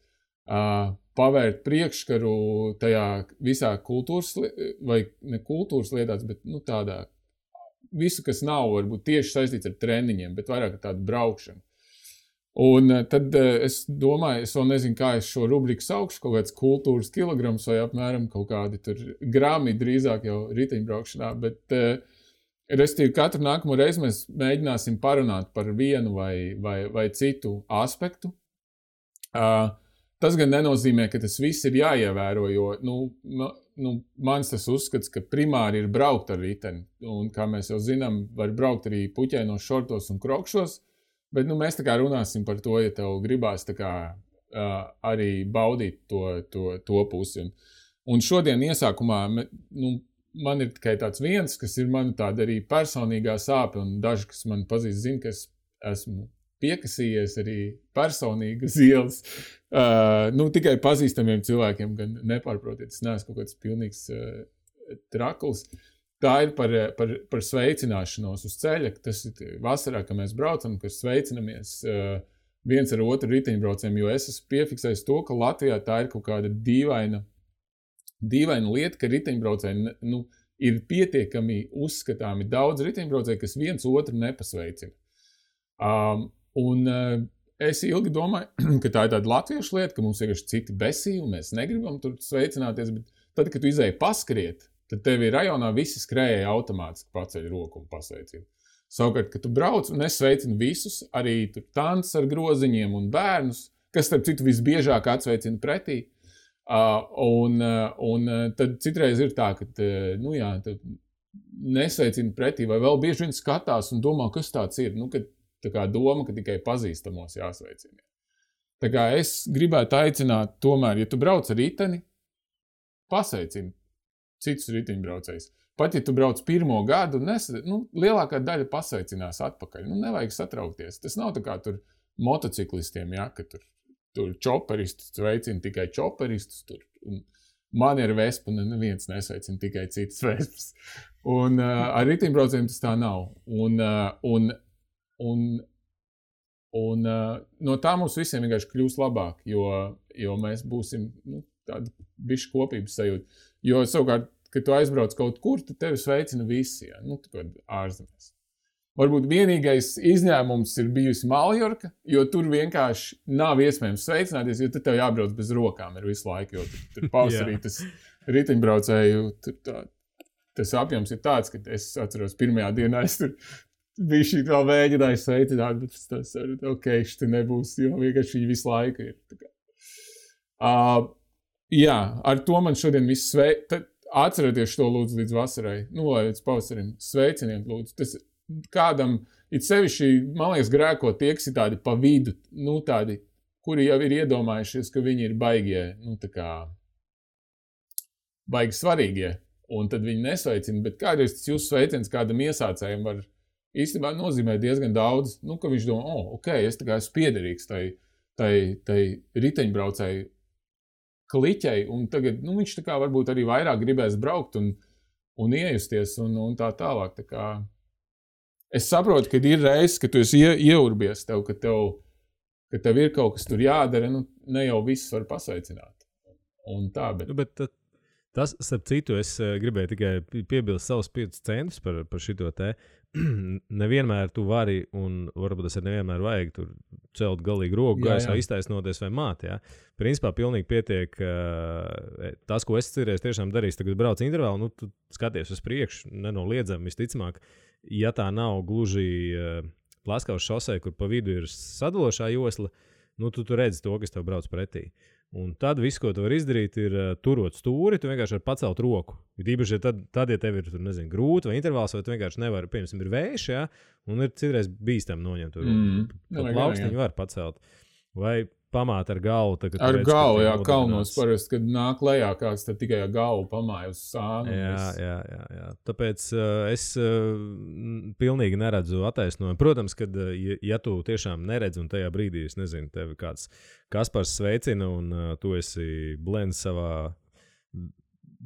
pavērt priekškaru tajā visā kultūras, vai ne kultūras lietās, bet tādā visu, kas nav varbūt tieši saistīts ar treniņiem, bet vairāk ar tādu braukšanu. Un tad es domāju, es vēl nezinu, kā es šo rubriku saukšu, kaut kāds kultūras kilograms vai apmēram kaut kādi tur grami drīzāk jau riteņbraukšanā, bet restīvi katru nākamo reizi mēs mēģināsim parunāt par vienu vai citu aspektu. Tas gan nenozīmē, ka tas viss ir jāievēro, jo mans tas uzskats, ka primāri ir braukt ar riteni, un kā mēs jau zinām, var braukt arī puķēnos šortos un krokšos. Bet mēs tā kā runāsim par to, ja tev gribās tā kā arī baudīt to pusi. Un šodien iesākumā man ir tikai tāds viens, kas ir man tāda arī personīgā sāpe, un daži, kas man pazīst, zina, ka es esmu piekasījies arī personīgi uz ielas. Tikai pazīstamiem cilvēkiem, gan nepārprotiet, es neesmu kaut kāds pilnīgs trakls. Tā ir par sveicināšanos uz ceļa. Tas ir vasarā, kad mēs braucam, kad sveicinamies viens ar otru riteņbraucējiem, jo es esmu piefiksējis to, ka Latvijā tā ir kaut kāda dīvaina lieta, ka riteņbraucēji ir pietiekami uzskatāmi daudz riteņbraucēji, kas viens otru nepasveicina. Es ilgi domāju, ka tā ir tāda latviešu lieta, ka mums vienkārši citi besī un mēs negribam tur sveicināties, bet tad, kad tu izēji paskriet, tad tevi rajonā visi skrējēji automātiski paceļ roku un pasveicina. Savukārt, kad tu brauc, un es sveicinu visus, arī tur tancis ar groziņiem un bērnus, kas, starp citu, visbiežāk atsveicina pretī, Un tad citreiz ir tā, ka, tad nesveicina pretī, vai vēl bieži vien skatās un domā, kas tāds ir. Kad tā kā doma, ka tikai pazīstamos jāsveicina. Tā kā es gribētu aicināt, tomēr, ja tu brauc ar riteni, pasveicini citus riteņbraucējus. Pat, ja tu brauc pirmo gadu, lielākā daļa pasveicinās atpakaļ. Nevajag satraukties. Tas nav tā kā tur motociklistiem, ja, ka tur čoperistus sveicina tikai čoperistus. Man ir vespa, neviens nesveicina tikai citas vespas. Un ar riteņbraucējiem tas tā nav. Un no tā mums visiem vienkārši kļūs labāk, jo mēs būsim tāda bišķi kopības sajūta. Jo savukārt, kad tu aizbrauc kaut kur, tad tevi sveicina visi, ja? Ārzemēs. Varbūt vienīgais izņēmums ir bijusi Maljorka, jo tur vienkārši nav iespējams sveicināties, jo tad tev jābrauc bez rokām ir visu laiku, jo tur pavasarī tas riteņbraucēju, tas apjoms ir tāds, ka es atceros pirmajā dienā, es tur bija šī vēl vēģināju sveicināt, bet tas šitā nebūs, jo vienkārši viņi visu laiku ir. Jā, ar to man šodien viss atcerieties to lūdzu līdz vasarai, vai līdz pavasarim, sveiciniet lūdzu. Tas kādam, it sevišķi, man liekas, grēko tie, kas ir tādi pa vidu, tādi, kuri jau ir iedomājušies, ka viņi ir baigie, baigi svarīgie, un tad viņi nesveicina, bet kādreiz tas jūsu sveiciens kādam iesācējiem var īstenībā nozīmē diezgan daudz, ka viņš domā, es tā kā esmu piederīgs tai riteņbraucēju kliķei, un tagad, viņš tā kā varbūt arī vairāk gribēs braukt un iejusties un tā tālāk. Tā kā es saprotu, ka ir reizes, ka tu esi ieurbies tev, ka tev ir kaut kas tur jādara, ne jau viss var pasveicināt. Un tā, bet tas, starp citu, es gribēju tikai piebilst savus 5 centus par šito te. Nevienmēr tu vari, un varbūt tas ir nevienmēr vajag tur celt galīgi roku gaisā, iztaisnoties vai māt, jā. Principā pilnīgi pietiek tas, ko es cerēju, tiešām darīs, tagad brauc intervālu, tu skaties uz priekšu, nenoliedzami, visticamāk, ja tā nav gluži Plaskavas šosei, kur pa vidu ir sadalošā josla, tu redzi to, kas tev brauc pretī. Un tad viss, ko tu vari izdarīt, ir turot stūri, tu vienkārši vari pacelt roku. Īpaši, tad, ja tev ir, grūti vai intervāls, vai tu vienkārši nevari, piemēram, ir vējš, ja, un ir citreiz bīstam noņemt to roku. Pat plaukstiņu var pacelt. Vai pamāt ar galvu. Ar galvu, jā, kalnos parasti, kad nāk lejā kāds, tad tikai ar galvu pamāja uz sānu. Jā. Tāpēc es pilnīgi neredzu attaisnojumu. Protams, kad, ja tu tiešām neredzi un tajā brīdī, es nezinu, tevi kāds Kaspars sveicina un tu esi blends savā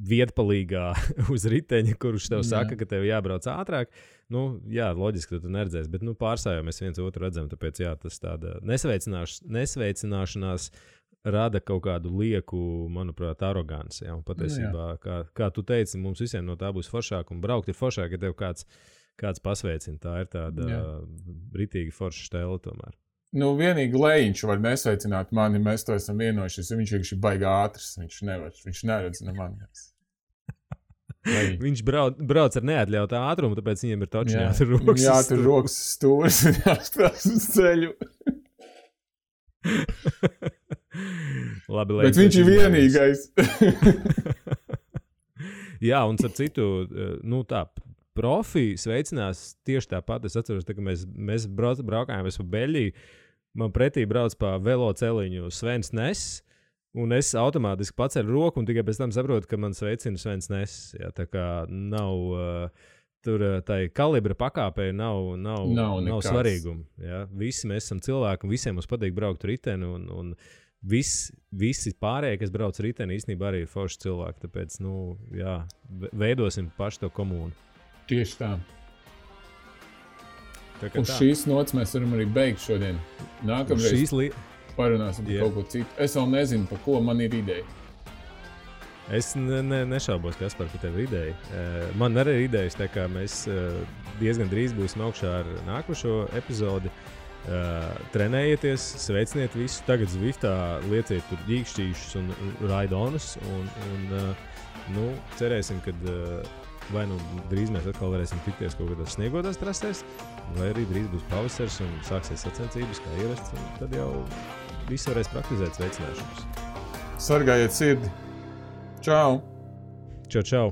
vietpalīgā uz riteņa, kurš tev saka, ka tev jābrauc ātrāk. Jā, loģiski, ka tu neredzēsi, bet pārsājā mēs viens otru redzam, tāpēc tas tāda nesveicināšanās rada kaut kādu lieku, manuprāt, aroganci. Ja? Un patiesībā, kā tu teici, mums visiem no tā būs foršāk un braukt ir foršāk, ja tev kāds pasveicina. Tā ir tāda ritīgi forša stēle tomēr. Vienīgi Lejiņš var nesveicināt mani, mēs to esam vienojušies, jo viņš ir baigi ātrs, viņš neredz ne mani. Viņš brauc ar neatļautā ātrumu, tāpēc viņiem ir toči jātur rokas. Jātur rokas stūris un jāspēs uz ceļu. Labi, bet viņš ir vienīgais. Jā, un ar citu, tā, profi sveicinās tieši tāpat. Es atceros, ka mēs braukājām pa Beļģiju, man pretī brauc pa veloceliņu Svens Ness, un es automātiski paceļu roku, un tikai pēc tam saprotu, ka man sveicina Svens Ness. Jā, tā kā nav tur tai kalibra pakāpē nav svarīguma. Jā. Visi mēs esam cilvēki, un visiem mums patīk braukt riteni, un visi pārējie, kas brauc riteni, īstenībā arī ir forši cilvēki. Tāpēc, veidosim paši to komūnu. Tieši tā. Uz šīs nots mēs varam arī beigt šodien. Nākamreiz parunāsim par kaut ko citu. Es vēl nezinu, par ko man ir ideja. Es nešaubos, Kaspar, ka tev ir ideja. Man arī ir idejas, tā kā mēs diezgan drīz būsim augšā ar nākošo epizodi. Trenējieties, sveiciniet visus. Tagad Zviftā lieciet tur ģīkšķīšus un raidonus. Un cerēsim, ka vai drīz mēs atkal varēsim tikties kaut kādās sniegotās trasēs, vai arī drīz būs pavasars un sāksies sacensības kā ierasts, un tad jau visi varēs praktizēt sveicināšanas. Sargājiet sirdi. Čau! Čau, čau!